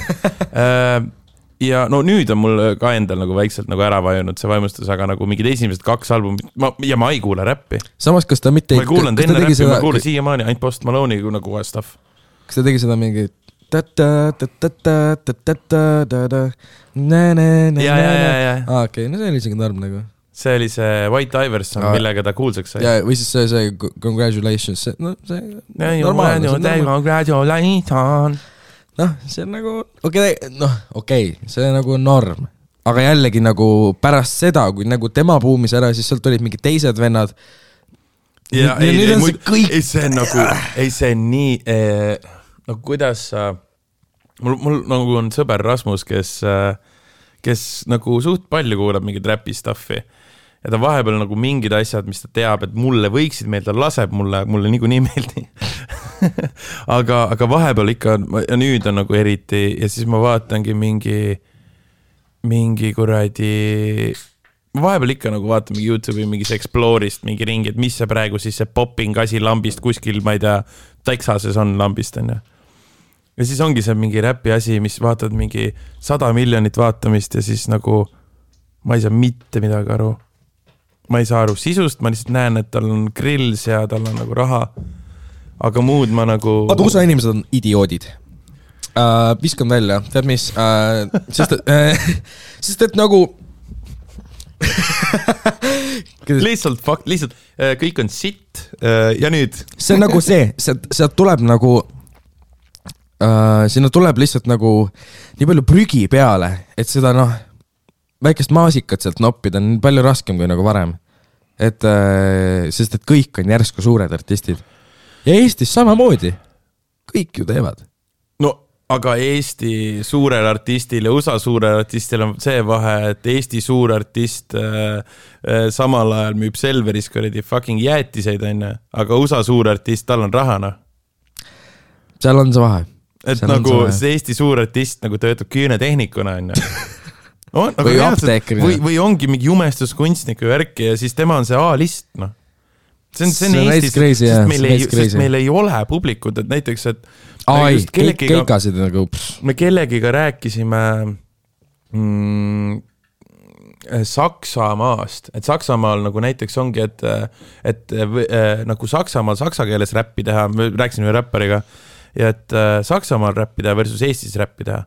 B: Ja nüüd on mul ka endal nagu väikselt nagu ära vajunud see vaimustus, aga nagu mingid esimesed 2 albumit, ja ma ei kuule räppi.
A: Samas, kas ta mitte...
B: Ma ei kuulanud enne räppi, ma kuulen siiamaani ainult Post Malone'i nagu stuff.
A: Kas ta tegi seda mingi...
B: Ja.
A: Okei, see oli isegi norm nagu.
B: See oli see White Iverson, millega ta kuulsaks sai.
A: Ja, või siis see congratulations, see
B: normaalne. Congratulations.
A: See on nagu, okei, see on nagu norm. Aga jällegi nagu pärast seda, kui nagu tema buumis ära, siis sealt olid mingid teised vennad.
B: Ja see on nagu, see on nii... No kuidas mul nagu on sõber Rasmus, kes nagu suht palju kuulab mingid räpi stuffi ja ta vahepeal nagu mingid asjad, mis ta teab, et mulle võiksid meelde, ta laseb mulle niiku nii meeldi. aga vahepeal ikka, ja nüüd on nagu eriti ja siis ma vaatangi mingi kuradi... Ma vahepeal ikka nagu vaatan mingi YouTube'i mingis Explore'ist mingi ringi, et mis see praegu siis see popping asi lambist kuskil, ma ei tea, Texases on lambist, on ja. Ja siis ongi see mingi räpi asi, mis vaatad mingi 100 miljonit vaatamist ja siis nagu ma ei saa mitte midagi aru. ma ei saa aru sisust, ma lihtsalt näen, et tal on grills ja tal on nagu raha. Aga muud ma nagu...
A: Vaata, USA inimesed on idioodid. Viskan välja, tead mis? Sest et nagu...
B: lihtsalt kõik on sitt ja nüüd...
A: See on nagu sealt tuleb nagu... sinna tuleb lihtsalt nagu nii palju prügi peale, et seda väikest maasikat sealt noppida on palju raskem kui nagu varem. Sest et kõik on järsku suured artistid. Ja Eestis samamoodi. Kõik ju teevad.
B: No, aga Eesti suurel artistil ja USA suurel artistil on see vahe, et Eesti suur artist samal ajal müüb Selveris kuradi fucking jäätiseid, aga USA suur artist, tal on rahana.
A: Seal on see vahe.
B: Et nagu see Eesti suur artist nagu töötab küünetehnikuna,
A: või apteekrina.
B: Või ongi mingi jumestuskunstniku värki ja siis tema on see A-list, See on Eestis, sest meil ei ole publikud, et näiteks, et
A: keikasid nagu...
B: Me kellegiga rääkisime Saksamaast, et Saksamaal nagu näiteks ongi, et nagu Saksamaal saksa keeles räppi teha, me rääkisime räppariga, ja et Saksamaal räppi teha versus Eestis räppi teha.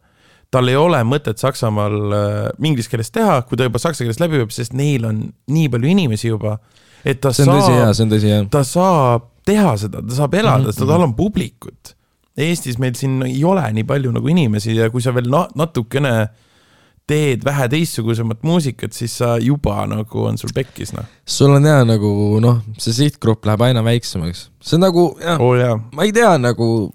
B: Tal ei ole mõtet Saksamaal inglis keeles teha, kui ta juba saksa keeles läbi võib, sest neil on nii palju inimesi juba, et ta saab teha seda, ta saab elada, sest tal on publikut. Eestis meil siin ei ole nii palju nagu inimesi ja kui sa veel natukene teed vähe teistsugusemat muusikat, siis sa juba nagu on sul pekkis.
A: Sul on hea nagu, see sihtgrupp läheb aina väiksemaks. See on nagu, ma ei tea nagu,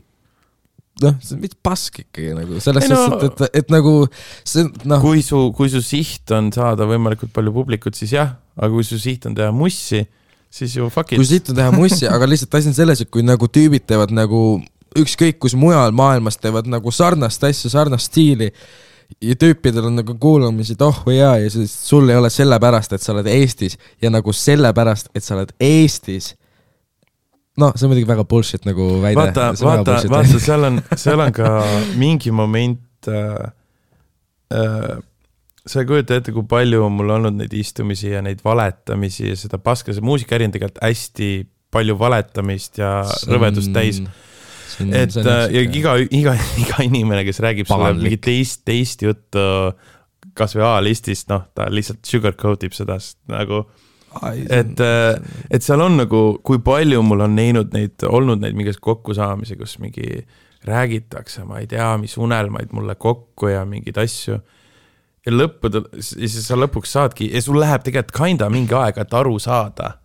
A: see on mitte pask ikkagi nagu, selles sest, et nagu see,
B: kui su siht on saada võimalikult palju publikut, siis jah, aga kui su siht on teha mussi, siis ju fuck it.
A: Kui siht on teha mussi, aga lihtsalt asi on selles, et kui nagu tüübid teevad nagu ükskõik kus mujal maailmas teevad nagu sarnast asja, sarnast stiili ja tüüpidel on nagu kuulamisid, või ja siis sul ei ole sellepärast, et sa oled Eestis ja nagu sellepärast, et sa oled Eestis. See on muidugi väga bullshit nagu väide.
B: Vaata, seal on ka mingi moment, sa ei kujuta ette, kui palju on mul olnud neid istumisi ja neid valetamisi ja seda paska, see muusikaäri on tegelikult hästi palju valetamist ja rõvedust täis. Et ja iga inimene, kes räägib sulle mingi teist juttu kas või A-listist, ta lihtsalt sugarcoatib seda nagu... Et seal on nagu, kui palju mul on olnud neid mingis kokkusaamisi, kus mingi räägitakse, ma ei tea, mis unelmaid mulle kokku ja mingid asju. Ja siis sa lõpuks saadki, ja sul läheb tegelikult kinda mingi aega, et aru saada,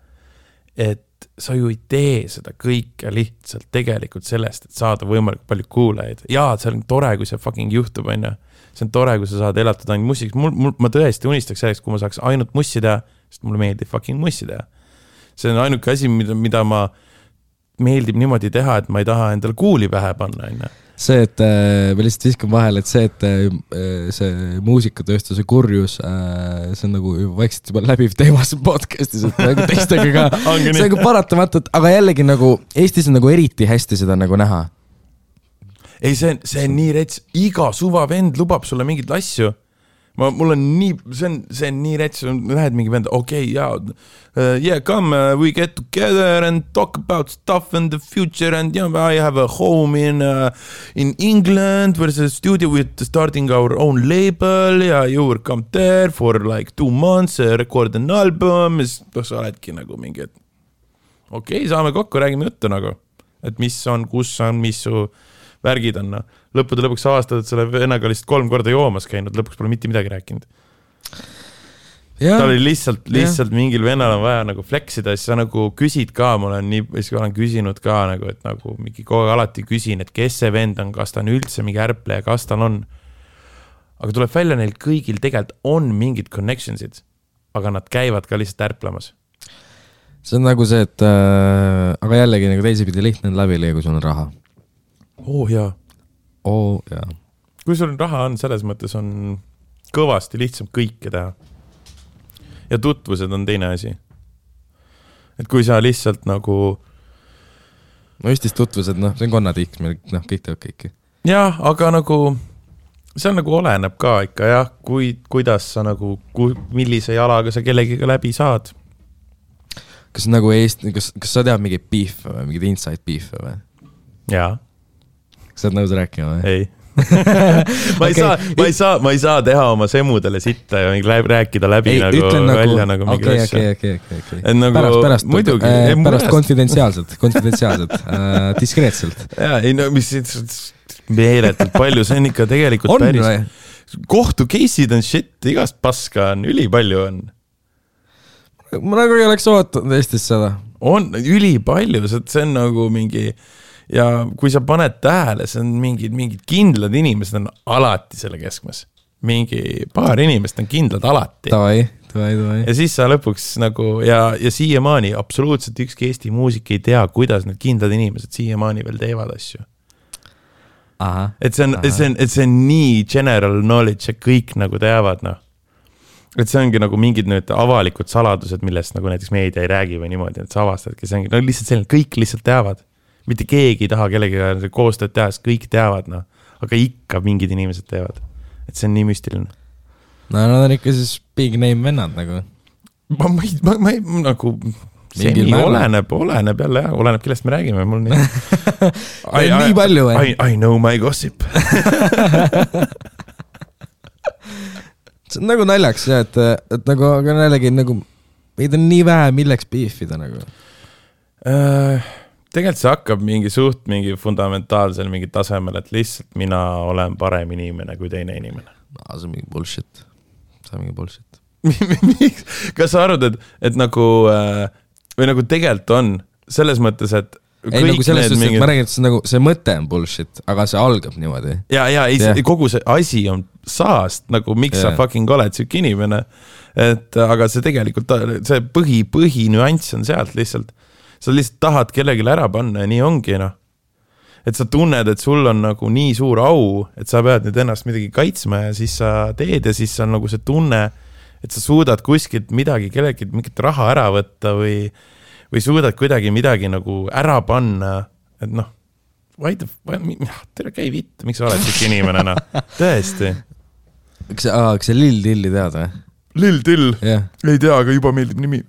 B: et sa ju ei tee seda kõike lihtsalt tegelikult sellest, et saada võimalikult palju kuulajaid. Jaa, see on tore, kui see fucking juhtub, see on tore, kui sa saad elatada ainult mussiks. Ma tõesti unistaks selleks, kui ma saaks ainult mussi teha, sest mulle meeldib fucking mussi teha. See on ainuke asi, mida ma meeldib niimoodi teha, et ma ei taha endale kuuli pähe panna.
A: See, et ma lihtsalt viskan vahel, et see muusikatööstuse kurjus, see on nagu vaikselt juba läbiv teemas podcastis, et nagu teistega ka, see on nagu paratamatult, aga jällegi nagu Eestis on nagu eriti hästi seda nagu näha.
B: Ei, see on nii rets, iga suva vend lubab sulle mingid asju. Mul on nii, see on nii rets, lähed mingi vend, yeah, come, we get together and talk about stuff in the future and I have a home in England where there's a studio with starting our own label ja you will come there for like 2 months, record an album, sa oledki nagu mingi, et saame kokku, räägime juttu nagu, et mis on, kus on, mis su värgid on. Lõppude lõpuks avastad, et selle vennaga lihtsalt 3 korda joomas käinud, lõpuks pole mitte midagi rääkinud. Ta oli lihtsalt mingil vennal on vaja nagu fleksida, siis sa nagu küsid ka, ma olen küsinud ka nagu, et nagu mingi kogu alati küsin, et kes see vend on, kas ta on üldse mingi ärpleja, kas tal on. Aga tuleb välja, neil kõigil tegelikult on mingid connectionsid, aga nad käivad ka lihtsalt ärplemas.
A: See on nagu see, et aga jällegi nagu teisipidi lihtne on läbi, kui sul on raha.
B: Jaa.
A: Jaa.
B: Kui sul raha on, selles mõttes on kõvasti lihtsam kõike teha. Ja tutvused on teine asi. Et kui sa lihtsalt nagu...
A: Eestis tutvused, see on konnatiiks, meil kõik teevad kõiki.
B: Jah, aga nagu... See on nagu oleneb ka ikka, jah, kuidas sa nagu... Millise jalaga sa kellegiga läbi saad.
A: kas nagu kas sa tead mingeid beef'e või, mingeid inside beef'e või?
B: Jaa.
A: Kas sa oled nõus rääkima või?
B: Ei. ma ei saa teha oma semudele sitta ja rääkida läbi ei, välja nagu mingi asja.
A: Pärast konfidentsiaalselt, diskreetselt.
B: Jaa, ei no mis meeletult palju, see on ikka tegelikult on, päris. Või? Kohtu case'id on shit, igast paska on, ülipalju on.
A: Ma nagu ei oleks ootanud Eestis seda.
B: On ülipalju, see on nagu mingi... Ja kui sa paned tähele, see on mingid kindlad inimesed on alati selle keskmes. Mingi paar inimest on kindlad alati.
A: Tavai.
B: Ja siis sa lõpuks nagu, ja siiamaani absoluutselt ükski Eesti muusik ei tea, kuidas need kindlad inimesed siiamaani veel teevad asju.
A: Aha.
B: Et see on nii general knowledge, ja kõik nagu teavad, noh. Et see ongi nagu mingid nüüd avalikud saladused, millest nagu näiteks meedia ei räägi või niimoodi, et sa avastadki, see ongi no, lihtsalt selline, kõik lihtsalt teavad. Mitte keegi ei taha kellegagi koostööd teha, sest kõik teavad, noh. Aga ikka mingid inimesed teevad. Et see on nii müstiline.
A: No nad on ikka siis big name vennad nagu.
B: Ma ei nagu... See oleneb jälle, jah. Oleneb, kellest me räägime. Mul nii...
A: nii palju või?
B: I know my gossip.
A: See on nagu naljaks, jah, et nagu, aga jällegi nagu, meid on nii vähe, milleks beefida nagu.
B: Tegelikult see hakkab mingi fundamentaalsel mingi tasemel, et lihtsalt mina olen parem inimene kui teine inimene.
A: See on mingi bullshit.
B: Kas sa arvad, et nagu, või nagu tegelikult on, selles mõttes, et
A: ei, nagu selles suhtes, et ma räägin, et see mõte on bullshit, aga see algab niimoodi.
B: Kogu see asi on saast, nagu miks sa fucking oled siuke inimene, et aga see tegelikult, see põhi nüanss on sealt lihtsalt. Sa lihtsalt tahad kellelegi ära panna ja nii ongi, noh. Et sa tunned, et sul on nagu nii suur au, et sa pead nüüd ennast midagi kaitsma ja siis sa teed ja siis on nagu see tunne, et sa suudad kuskilt midagi, kellelegi mingit raha ära võtta või suudad kuidagi midagi nagu ära panna, et noh, tere käi vitt, miks sa oled siuke inimene, noh, tõesti.
A: Kas sa Lill Tilli tead või?
B: Lill Till, ei tea, aga juba meeldib nimi.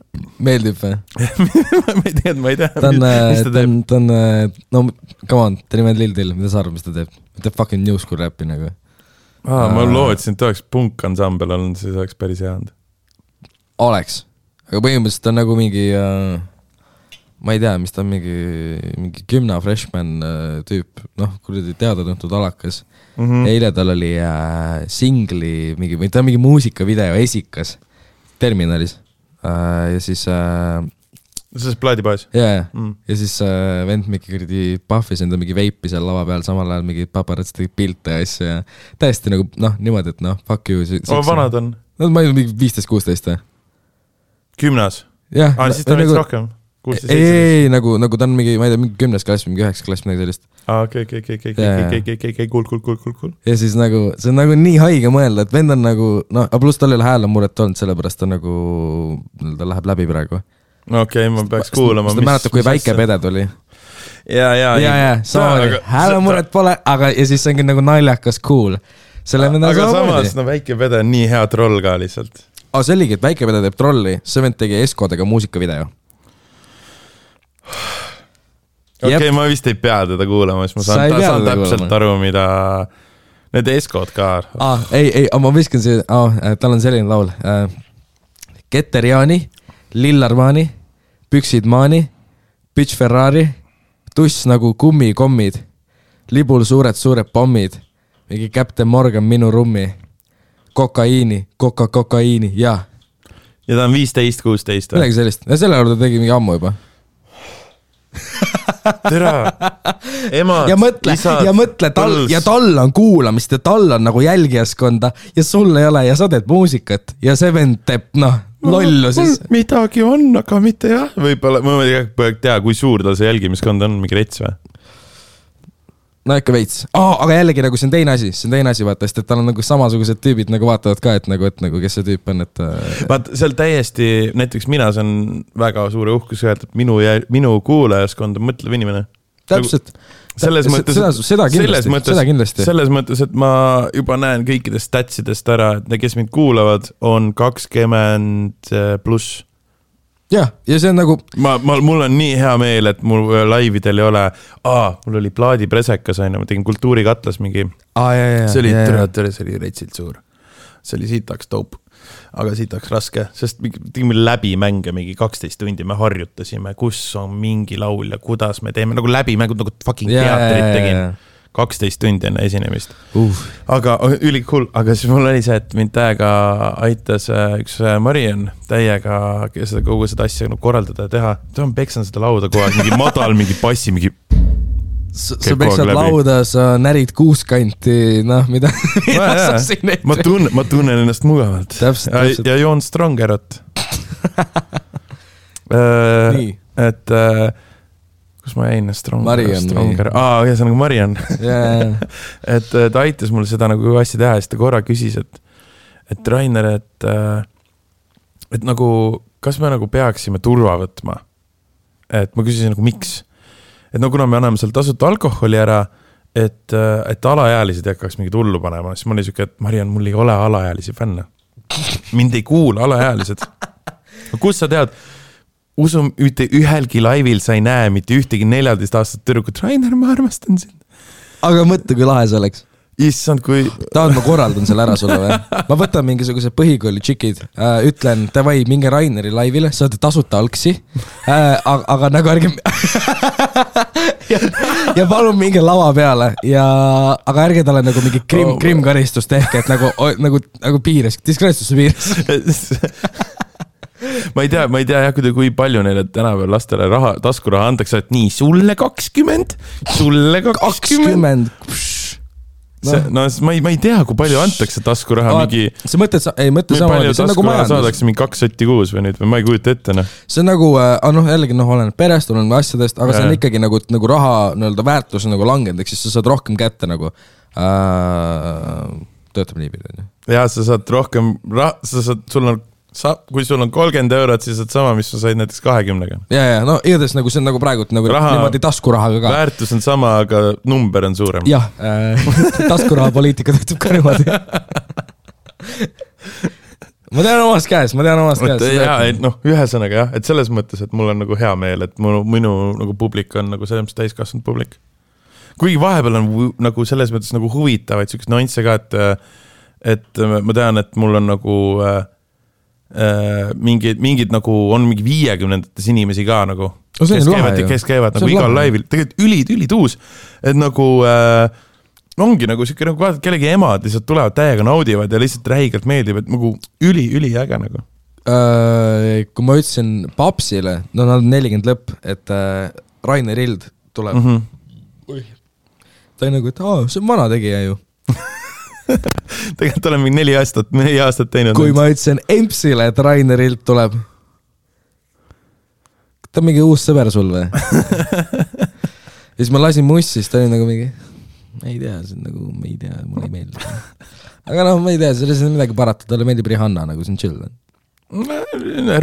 A: Meeldib või?
B: ma ei tea.
A: Ta on, no come on, ta nimed Lill Till, mida sa arvad, mis ta teeb? Ta teeb fucking new school räppi nagu.
B: Ma lootsin, et ta oleks punk-ansambel olnud, siis oleks päris hea olnud.
A: Oleks, aga põhimõtteliselt ta on nagu mingi, ma ei tea, mis ta on mingi gümna freshman tüüp, noh, kuradi teada-tuntud alakas. Eile tal oli singli, või ta on mingi muusikavideo esikas Terminalis ja siis
B: see plaadipaas?
A: Ja siis vend mingi puffis enda mingi veipi seal lava peal, samal ajal mingi paparatsi tegi pilte ja asja ja täiesti nagu, noh, niimoodi, et noh, fuck you.
B: Vanad on?
A: No ma ei mingi 15-16
B: Gümnas? Siis ta veits rohkem?
A: Ei, nagu ta on mingi, ma ei tea, mingi 10. klass, mingi 9. klass, midagi sellist.
B: Okei, cool.
A: Ja siis nagu, see on nagu nii haige mõelda, et vend on nagu, no, pluss tal ei ole hääl on muret olnud, sellepärast ta nagu, ta läheb läbi praegu.
B: Okei, ma peaks kuulama.
A: Sest mäletab, kui väike pede tuli.
B: Ja,
A: samamoodi, hääl on muret pole, aga ja siis see ongi nagu naljakas cool.
B: Aga samas, no väike pede on nii hea troll ka lihtsalt.
A: See oligi, et väike pede teeb trolli, see vend tegi Eskodega muusikavideo.
B: Okei, ma vist ei pea teda kuulama, siis ma saan täpselt aru, mida need Eskod ka.
A: Ei, ma viskan see, tal on selline laul. Keteriani, Lillarmaani, Püksid maani, Bitch Ferrari, tuss nagu kummikommid, libul suured pommid, mingi Captain Morgan minu rummi, kokaiini, ja
B: ta on 15-16.
A: Midagi sellist, ja selle juurde tegi mingi ammu juba.
B: Tere, emad,
A: isad, ja mõtle tal on kuulamist ja tal on nagu jälgijaskonda ja sul ei ole ja sa teed muusikat ja see vend teeb, lollu siis.
B: Midagi on, aga mitte jah. Võibolla, ma ei tea, kui suur tal see jälgimiskond on, mingi rets või?
A: No ikka veits. Aga jällegi nagu see on teine asi, vaata, sest et tal on nagu samasugused tüübid nagu vaatavad ka, et nagu kes see tüüp on, et...
B: Vaat, seal täiesti, näiteks mina see on väga suure uhkus öelda, et minu kuulajaskond on mõtlev inimene.
A: Täpselt.
B: Selles mõttes,
A: seda kindlasti.
B: Selles mõttes, et ma juba näen kõikidest statsidest ära, et kes mind kuulavad, on 20 pluss.
A: jah, ja see on nagu
B: mul on nii hea meel, et mul laividel ei ole mul oli plaadipresekas, ma tegin Kultuurikatlas mingi see oli retsilt suur, see oli siitaks taup, aga siitaks raske, sest tegime läbi mänge mingi 12 tundi, me harjutasime, kus on mingi laul ja kuidas me teeme, nagu läbi mängud, nagu fucking teatrit tegin 12 tundi enne esinemist. Aga ülikul, aga siis mul oli see, et mind täiega aitas üks Marian täiega seda kogu seda asja korraldada ja teha. Ta on peksan seda lauda kogu aeg, mingi madal, mingi bassi, mingi...
A: Sa peksad lauda, sa närid kuuskanti, mida sa siin ette.
B: Ma tunnen ennast mugavalt.
A: Täpselt.
B: Ja joon Strongerot. Et... kus ma jäin? Stronger. Ja see on nagu Marian. Et ta aitas mul seda nagu asja teha ja siis ta korra küsis, et Rainer, et nagu, kas me nagu peaksime turva võtma? Et ma küsisin nagu, miks? Et nagu kuna me anname seal tasuta alkoholi ära, et alaealised hakkaks mingi tullu panema, siis ma oli siuke, et Marian, mul ei ole alaealisi fänne. Mind ei kuula alaealised. Kus sa tead? Usum, ühelgi laivil sa ei näe mitte ühtegi 14 aastat tüdrukut. Rainer, ma armastan sind.
A: Aga mõtle, kui lahe see oleks.
B: Issand, kui...
A: Tahad, ma korraldan selle ära sulle või? Ma võtan mingisuguse põhikooli tšikid, ütlen, davai, minge Raineri laivile, saate tasuta alksi, aga nagu ärge... ja palun minge lava peale, aga ärge talle nagu mingi krimkaristust ehk, et nagu piires, diskreetsusse piires.
B: Ma ei tea jah, kui palju neile tänapäeval lastele taskuraha antakse, et nii, sulle 20. No ma ei tea, kui palju antakse taskuraha mingi...
A: See mõtled sama, see on nagu majandus.
B: Saadakse mingi 2 sotti kuus või nüüd, või ma ei kujuta ette.
A: See on nagu, jällegi olen perest, olen asjadest, aga see on ikkagi nagu raha väärtus on nagu langenud, eks siis sa saad rohkem kätte nagu... Töötab nii pidi.
B: Ja sa saad rohkem... kui sul on 30 eurot, siis saad sama, mis sa said näiteks 20-ga.
A: Ja, igatahes nagu see on nagu praegu niimoodi taskurahaga ka.
B: Väärtus on sama, aga number on suurem.
A: Jah, taskuraha poliitika töötab ka niimoodi. Ma tean omast käes.
B: Ühesõnaga jah, et selles mõttes, et mul on nagu hea meel, et minu nagu publik on nagu selles mõttes täiskasvanud publik. Kuigi vahepeal on nagu selles mõttes nagu huvitavaid sellised nüansse ka, et ma tean, et mul on nagu... mingid nagu on mingi 50-ndates inimesi ka nagu, kes käivad nagu igal laivil, tegelikult ülituus, et nagu ongi nagu siuke nagu vaatad kellegi emad lihtsalt tulevad täiega naudivad ja lihtsalt räigelt meeldib, et nagu üliäge nagu.
A: Kui ma ütlesin Papsile, nad on 40 lõpp, et Rainer Ild tuleb. Ta on nagu, et see on vana tegija ju.
B: Tegelikult olen mingi 4 aastat teinud.
A: Kui ma ütlesin Empsile, et Rainer Ilt tuleb. Ta on mingi uus sõber sul või? Ja siis ma lasin mussis, ta oli nagu mingi ei tea, see on nagu, ma ei tea, mulle ei meeldi. Aga ma ei tea, selles on midagi parata, talle meeldib Rihanna, nagu see on chill.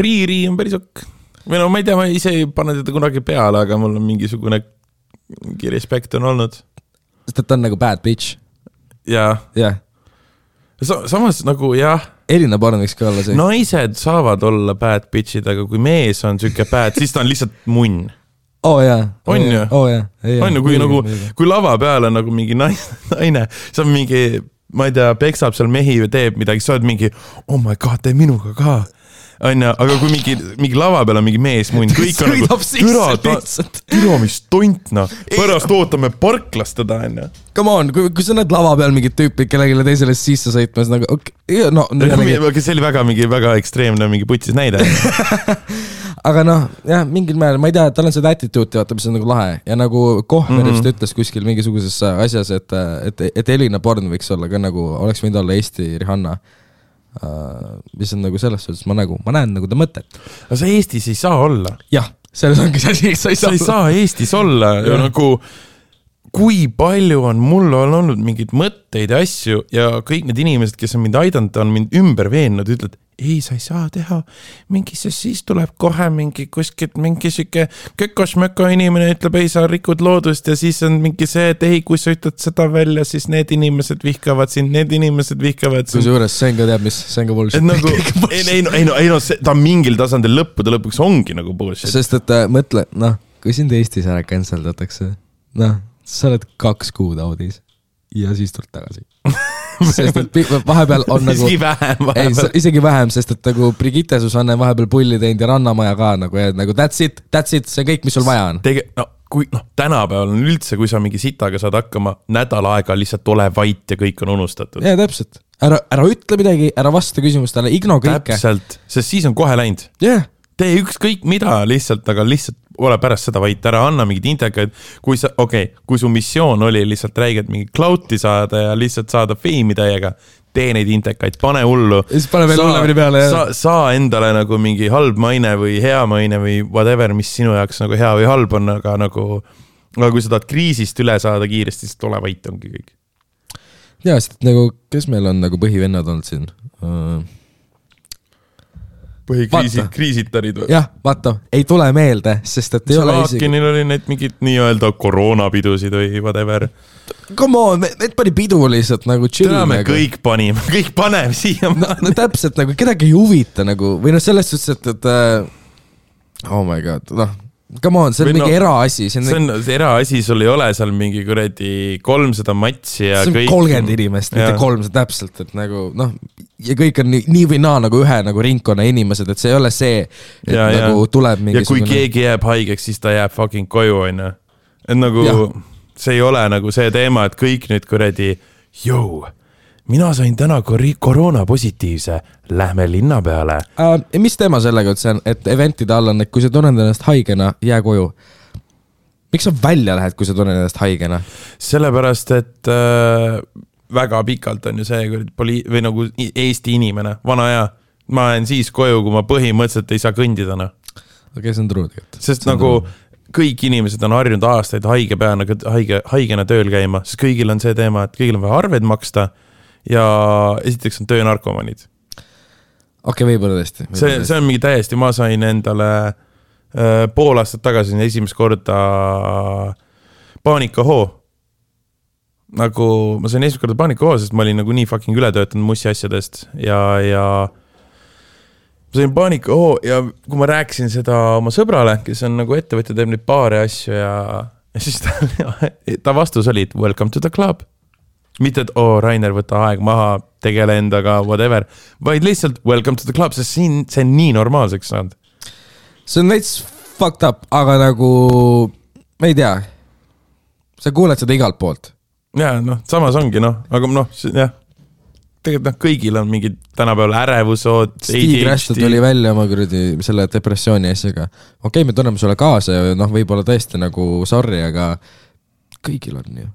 A: Riiri on päris ok. Või ma ei tea, ma ise ei pane teda kunagi peale, aga mul on mingisugune respekt on olnud. Sest ta on nagu bad bitch. Jaa. Samas nagu jah. Elina Barn võiks ka olla see. Naised saavad olla bad bitchid, aga kui mees on süke bad, siis ta on lihtsalt munn. Jaa. On ju? On ju, kui lava peal on nagu mingi naine, see on mingi, ma ei tea, peksab seal mehi või teeb midagi, sa oled mingi, oh my god, tee minuga ka. Aga kui mingi lava peal on mingi mees munn, kõik on nagu türa, mis tontna, pärast ootame parklast teda, enne. Come on, kui sa näed lava peal mingid tüüpid, kellegile teisele sisse sõitmas, nagu okei, see oli väga ekstreemne mingi putsis näide. Aga jah, mingil määral, ma ei tea, tal on seda attitude, vaata, mis on nagu lahe. Ja nagu Kohmerist ütles kuskil mingisuguses asjas, et Elina Born võiks olla ka nagu, oleks võinud olla Eesti Rihanna. Mis on nagu selles suhtes, ma näen nagu ta mõtet. Aga sa Eestis ei saa olla. Jah, selles ongi see, sa ei saa Eestis olla. Ja nagu, kui palju on mul olnud mingid mõtteid ja asju ja kõik need inimesed, kes on mind aidanud, on mind ümber veennud, ütled,
B: ei, sa ei saa teha mingi, sest siis tuleb kohe mingi kuskilt mingi siuke kökosmöko inimene ütleb, ei, sa rikud loodust ja siis on mingi see, et ei, kui sa ütled seda välja, siis need inimesed vihkavad sind, need inimesed vihkavad sind.
A: Kusjuures Senga teab, mis Senga bullshit.
B: Nagu, ei no, ta mingil tasandil lõppude lõpuks ongi nagu bullshit.
A: Sest et mõtle, kui sind Eestis ära canceldatakse, sa oled 2 kuud audis ja siis tuled tagasi. Sest et vahepeal on nagu isegi vähem, sest et nagu Brigitte Susanne vahepeal pulli teinud ja Rannamaja ka nagu that's it, see on kõik, mis sul vaja on.
B: Tänapäeval on üldse, kui sa mingi sitaga saad hakkama, nädal aega lihtsalt ole vait ja kõik on unustatud.
A: Ja täpselt, ära ütle midagi, ära vasta küsimustele, igno kõike.
B: Täpselt, sest siis on kohe läinud. Tee ükskõik mida lihtsalt, aga lihtsalt ole pärast seda vaid, ära anna mingid intekaid, kui su missioon oli lihtsalt räigelt mingi cloud'i saada ja lihtsalt saada feimi täiega, tee neid intekaid, pane hullu.
A: Ja siis pane veel hullemini peale.
B: Saa endale nagu mingi halb maine või hea maine või whatever, mis sinu jaoks nagu hea või halb on, aga nagu kui sa tahad kriisist üle saada kiiresti, siis ole vait ongi kõik.
A: Ja, sest nagu, kes meil on nagu põhivennad olnud siin?
B: Põhikriisitarid või?
A: Jah, vaata, ei tule meelde, sest et ei ole isegi...
B: Laakinil oli need mingid nii-öelda koroonapidusid või whatever.
A: Come on, need pani pidu lihtsalt nagu chill.
B: Me kõik panime, kõik paneme siia.
A: No täpselt nagu, kedagi ei huvita nagu, või selles suhtes, et oh my god, come on, see on mingi eraasi.
B: See on eraasi, sul ei ole seal mingi kuredi 300 matsi ja
A: kõik... See on 30 inimest, mitte 300 täpselt, et nagu, ja kõik on nii või naa nagu ühe nagu ringkonna inimesed, et see ei ole see, et nagu tuleb mingi...
B: Ja kui keegi jääb haigeks, siis ta jääb fucking koju, on. Et nagu, see ei ole nagu see teema, et kõik nüüd kuredi, mina sain täna koroona positiivse, lähme linna peale.
A: Mis teema sellega üldse on, et eventide all on, et kui sa tunned ennast haigena, jää koju. Miks sa välja lähed, kui sa tunned ennast haigena?
B: Sellepärast, et väga pikalt on ju see või nagu Eesti inimene, vana ja ma olen siis koju, kui ma põhimõtteliselt ei saa kõndida.
A: Okei, see on true tegelikult.
B: Sest nagu kõik inimesed on harjunud aastaid haigena tööl käima, sest kõigil on see teema, et kõigil on vaja arved maksta ja esiteks on töönarkomanid.
A: Okei, võib-olla tõesti.
B: See on mingi täiesti, ma sain endale pool aastat tagasi esimest korda paanikahoo. Nagu ma sain esimest korda paanikahoo, sest ma olin nagu nii fucking üle töötanud mussi asjadest ja ma sain paanikahoo ja kui ma rääkisin seda oma sõbrale, kes on nagu ettevõtja, teeb neid paare asju ja siis ta vastus oli, welcome to the club. Mitte, et Rainer, võta aeg maha, tegele endaga, whatever, vaid lihtsalt welcome to the club, sest see on nii normaalseks saanud.
A: See on veits fucked up, aga nagu, ma ei tea, sa kuuled seda igalt poolt.
B: Ja, samas ongi, aga jah, tegelikult kõigil on mingid tänapäeval ärevusod.
A: Steve Rastud oli välja oma selle depressiooni asjaga. Okei, me tunneme sulle kaasa ja võib-olla tõesti nagu sorry, aga kõigil on ju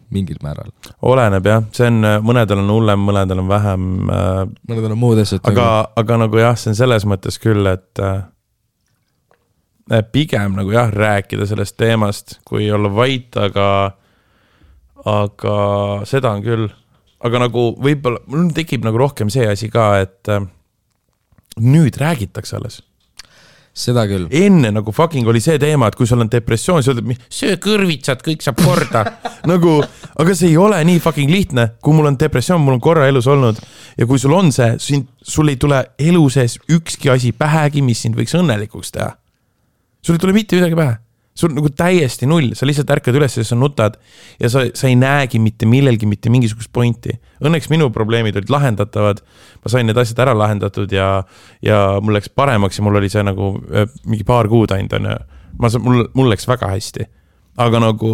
A: mingil määral.
B: Oleneb jah, see on, mõnedel on hullem, mõnedel on vähem.
A: Mõnedel on muud asjad.
B: Aga nagu jah, see on selles mõttes küll, et pigem nagu jah, rääkida sellest teemast, kui olla vait, aga seda on küll. Aga nagu võib-olla, mul tekib nagu rohkem see asi ka, et nüüd räägitakse alles.
A: Seda küll.
B: Enne nagu fucking oli see teema, et kui sul on depressioon, siis öeldad, söö kõrvitsad, kõik saab korda. Nagu, aga see ei ole nii fucking lihtne. Kui mul on depressioon, mul on korra elus olnud ja kui sul on see, sul ei tule elu sees ükski asi pähegi, mis sind võiks õnnelikuks teha. Sul ei tule mitte midagi pähe. Sul nagu täiesti null, sa lihtsalt ärkad üles ja sa nutad ja sa ei näegi mitte millelgi mitte mingisugust pointi. Õnneks minu probleemid olid lahendatavad, ma sain need asjad ära lahendatud ja mul läks paremaks ja mul oli see nagu mingi paar kuud ainult. Mul läks väga hästi. Aga nagu...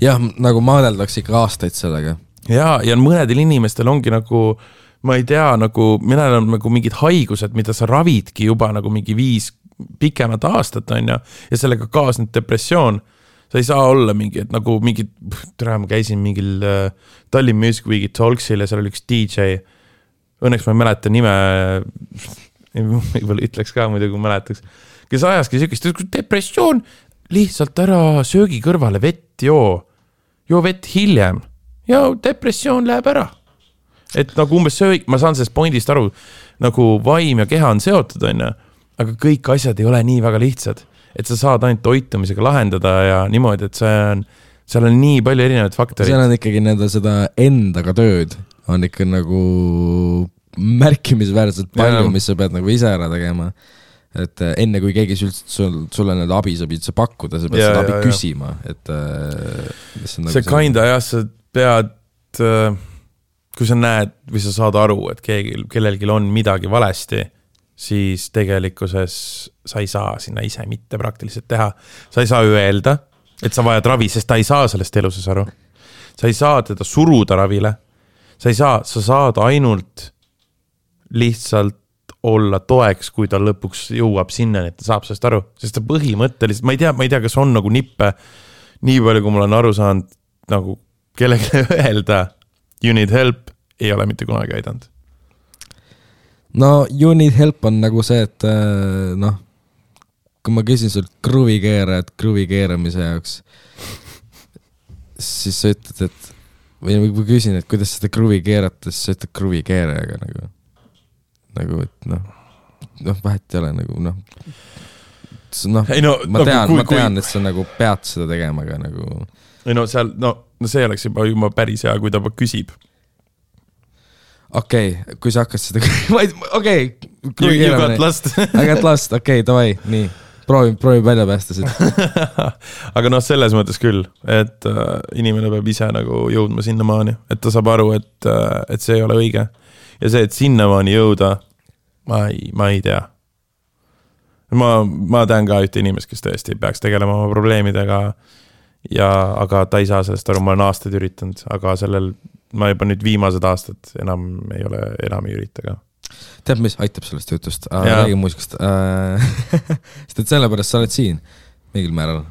A: Jah, nagu maadeldaks ikka aastaid sellega.
B: Ja mõnedel inimestel ongi nagu, ma ei tea, nagu minel on nagu mingid haigused, mida sa ravidki juba nagu mingi 5 pikemat aastat on ja sellega kaasnud depressioon. Sa ei saa olla mingi, et nagu mingi, ma käisin mingil Tallinn Music Weeki Talksil ja seal oli üks DJ. Õnneks ma ei mäleta nime, võib-olla ütleks ka muidu, kui mäletaks, kes ajaski sükist, depressioon, lihtsalt ära söögi kõrvale vett joo vett hiljem ja depressioon läheb ära. et nagu umbes ma saan sellest pointist aru, nagu vaim ja keha on seotud, on ju, aga kõik asjad ei ole nii väga lihtsad, et sa saad ainult toitumisega lahendada ja niimoodi, et seal on nii palju erinevaid faktoreid.
A: Seal on ikkagi seda endaga tööd, on ikka nagu märkimisväärselt palju, mis sa pead nagu ise ära tegema. Et enne kui keegi sulle abi saab üldse pakkuda, sa pead seda abi küsima. Et,
B: see kinda jah, sa pead, kui sa näed või sa saad aru, et kellelgi on midagi valesti, siis tegelikkuses sa ei saa sinna ise mitte praktiliselt teha. Sa ei saa öelda, et sa vajad ravi, sest ta ei saa sellest eluses aru. Sa ei saa teda suruda ravile. Sa saad ainult lihtsalt olla toeks, kui ta lõpuks jõuab sinna, et ta saab sellest aru. Sest ta põhimõtteliselt, ma ei tea, kas on nagu nippe, nii palju, kui mul on aru saanud, nagu kellelegi öelda, you need help, ei ole mitte kunagi aidanud.
A: No, you need help on nagu see, et kui ma küsin sult kruvi keeramise jaoks, siis sa ütled, et või kui küsin, et kuidas seda kruvi keerata, siis sa ütled kruvi keerajaga nagu, et vahet ei ole nagu, ma tean, et sa nagu pead seda tegema, aga nagu
B: ei seal, see oleks juba päris hea, kui ta küsib.
A: Okei, kui sa hakkad seda
B: You got lost.
A: I got lost, davai, nii proovi välja päästa seda.
B: Aga selles mõttes küll, et inimene peab ise nagu jõudma sinnamaani, et ta saab aru, et see ei ole õige. Ja see, et sinnamaani jõuda, ma ei tea. Ma tean ka ühte inimest, kes tõesti peaks tegelema oma probleemidega, aga ta ei saa sellest aru, ma olen aastaid üritanud, aga ma juba nüüd viimased aastad enam ei ürita ka.
A: Tead, mis aitab sellest jutust? Räägi muusikast. Sest et sellepärast sa oled siin mingil määral.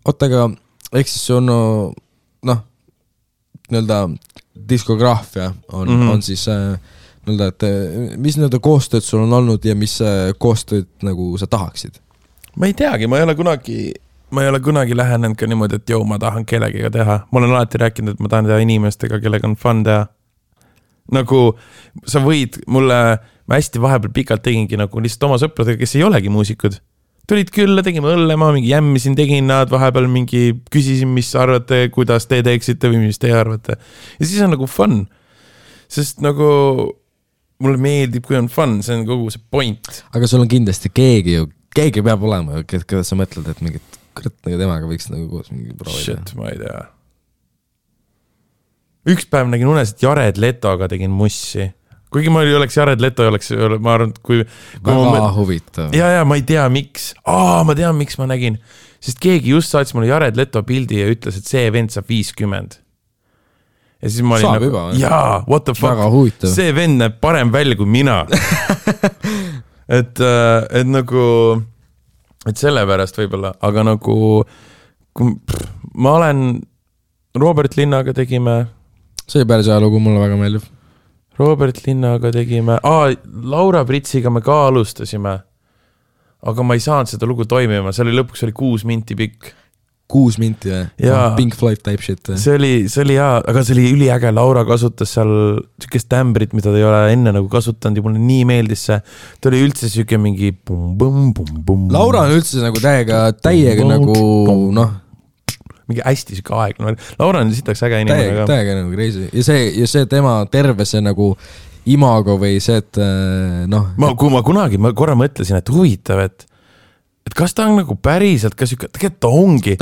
A: Aga ehk siis on nii-öelda diskograafia on siis nii-öelda, et mis nii-öelda koostööd sul on olnud ja mis koostööd nagu sa tahaksid?
B: Ma ei teagi, ma ei ole kunagi lähenenud ka niimoodi, et ma tahan kellegiga teha. Ma olen alati rääkinud, et ma tahan teha inimestega, kellega on fun teha. Nagu sa võid ma hästi vahepeal pikalt tegingi nagu lihtsalt oma sõpradega, kes ei olegi muusikud. Tulid külla, tegime õllema, mingi jämmisin, tegin nad vahepeal mingi, küsisin, mis arvate, kuidas te teeksite või mis te arvate. Ja siis on nagu fun. Sest nagu mulle meeldib, kui on fun, see on kogu see point.
A: Aga sul on kindlasti keegi peab olema, keda sa mõtled, et mingit nagu temaga võiks nagu koos mingi proovida.
B: Shit, ma ei tea. Üks päev nägin unes, et Jared Letoga tegin mussi. Kuigi ma oleks Jared Leto, ma arvan, kui
A: väga huvitav.
B: Ja, ma ei tea, miks. Ma tean, miks ma nägin. Sest keegi just saatis mulle Jared Leto pildi ja ütles, et see vend saab 50. Ja siis ma olin
A: saab juba.
B: Jaa, what the fuck. See vend näeb parem välja kui mina. et nagu, et sellepärast võib-olla, aga nagu ma olen Robert Linnaga tegime.
A: See päris ajalugu mulle väga meeldib.
B: Robert Linnaga tegime. Laura Pritsiga me ka alustasime. Aga ma ei saanud seda lugu toimima. See oli lõpuks 6 minti pikk.
A: 6 minti või? Pink Floyd type shit.
B: See oli hea, aga see oli üliäge. Laura kasutas seal sükest tämbrit, mida ta ei ole enne nagu kasutanud ja mulle nii meeldis see. Ta oli üldse süke mingi bum.
A: Laura on üldse nagu täiega nagu
B: mingi hästi süke aeg. Laura on sitaks äge inimene.
A: Täiega nagu crazy. Ja see tema terve see nagu imago või see, et
B: Kui ma korra mõtlesin, et huvitav, et kas ta on nagu päriselt, tegelikult ta ongi.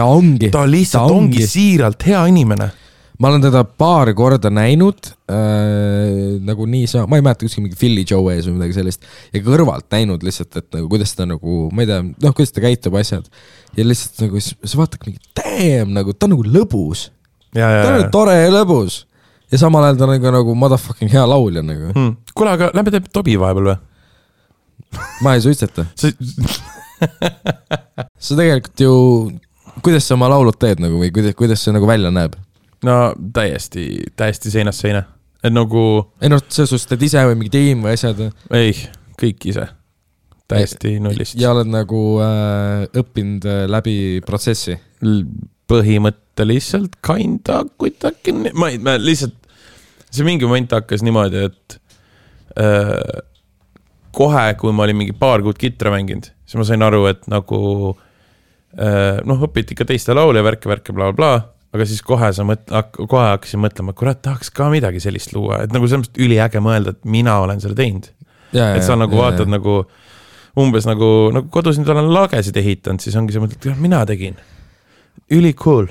B: Ta lihtsalt ongi siiralt hea inimene.
A: Ma olen teda paar korda näinud, nagu nii ma ei mäleta kuskil mingi Philly Joe ees või midagi sellist, ja kõrvalt näinud lihtsalt, et nagu, kuidas ta nagu, ma ei tea, kuidas ta käitub asjad. Ja lihtsalt nagu, sa vaatad mingi nagu, ta on nagu lõbus. Ta on nagu tore ja lõbus. Ja samal ajal ta on nagu motherfucking hea laulja nagu.
B: Kuule, aga läbi teeb Tobi vahepeal või?
A: Ma ei suitseta. Sa tegelikult ju, kuidas sa oma laulud teed nagu, või kuidas see nagu välja näeb?
B: No täiesti seinast seina. Et nagu
A: see sus teed ise või mingi tiim või asjad?
B: Ei, kõik ise. Täiesti nullist.
A: Ja oled nagu õppinud läbi protsessi?
B: Põhimõtteliselt kinda kuidagi. Ma lihtsalt see mingi moment hakkas niimoodi, et kohe, kui ma olin mingi paar kuud kitra mänginud, siis ma sain aru, et nagu õpiti ikka teiste laule ja värke, bla, bla, aga siis kohe hakkasin mõtlema, et kurat, tahaks ka midagi sellist luua, et nagu selles mõttes üliäge mõelda, et mina olen selle teinud. Et sa nagu vaatad nagu umbes nagu kodus nüüd olen lagesid ehitanud, siis ongi see mõtled, et mina tegin. Üli cool.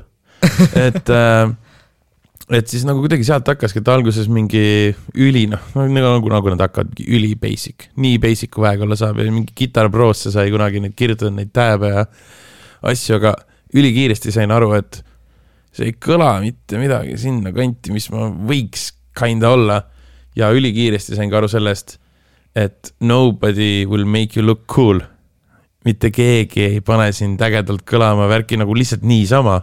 B: Et siis nagu kuidagi sealt hakkaski, et alguses mingi üli, nagu nad hakkavad üli basic. Nii basic kui väega olla saab ja mingi Guitar Prosse sai kunagi neid kirjutada neid tääbe ja asju, aga ülikiiresti sain aru, et see ei kõla mitte midagi sinna kanti, mis ma võiks kinda olla ja ülikiiresti sain ka aru sellest, et nobody will make you look cool. Mitte keegi ei pane sind ägedalt kõlama värki nagu lihtsalt niisama.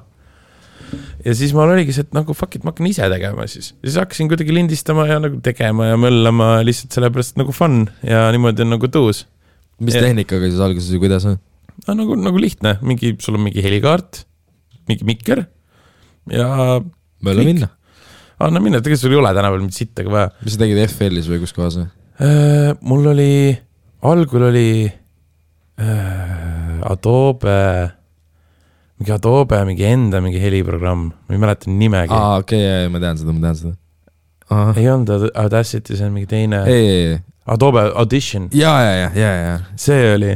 B: Ja siis ma oligi see, et nagu fuck it, ma hakkan ise tegema siis. Siis hakkasin kuidagi lindistama ja nagu tegema ja möllama lihtsalt sellepärast nagu fun ja niimoodi on nagu tuus.
A: Mis tehnikaga siis alguses ja kuidas on?
B: Nagu lihtne. Sul on mingi helikaart, mingi mikker ja...
A: Mölle minna.
B: Anna minna, tegelikult sul ei ole täna veel mitte sittega vaja.
A: Mis sa tegid FL-is või kus kohas?
B: Mul oli, algul oli Adobe, mingi enda mingi heliprogramm, ma ei mäleta nimegi.
A: Okei, ma tean seda. Aha.
B: Ei olnud Audacity, see on mingi teine.
A: Ei.
B: Adobe Audition.
A: Ja.
B: See oli.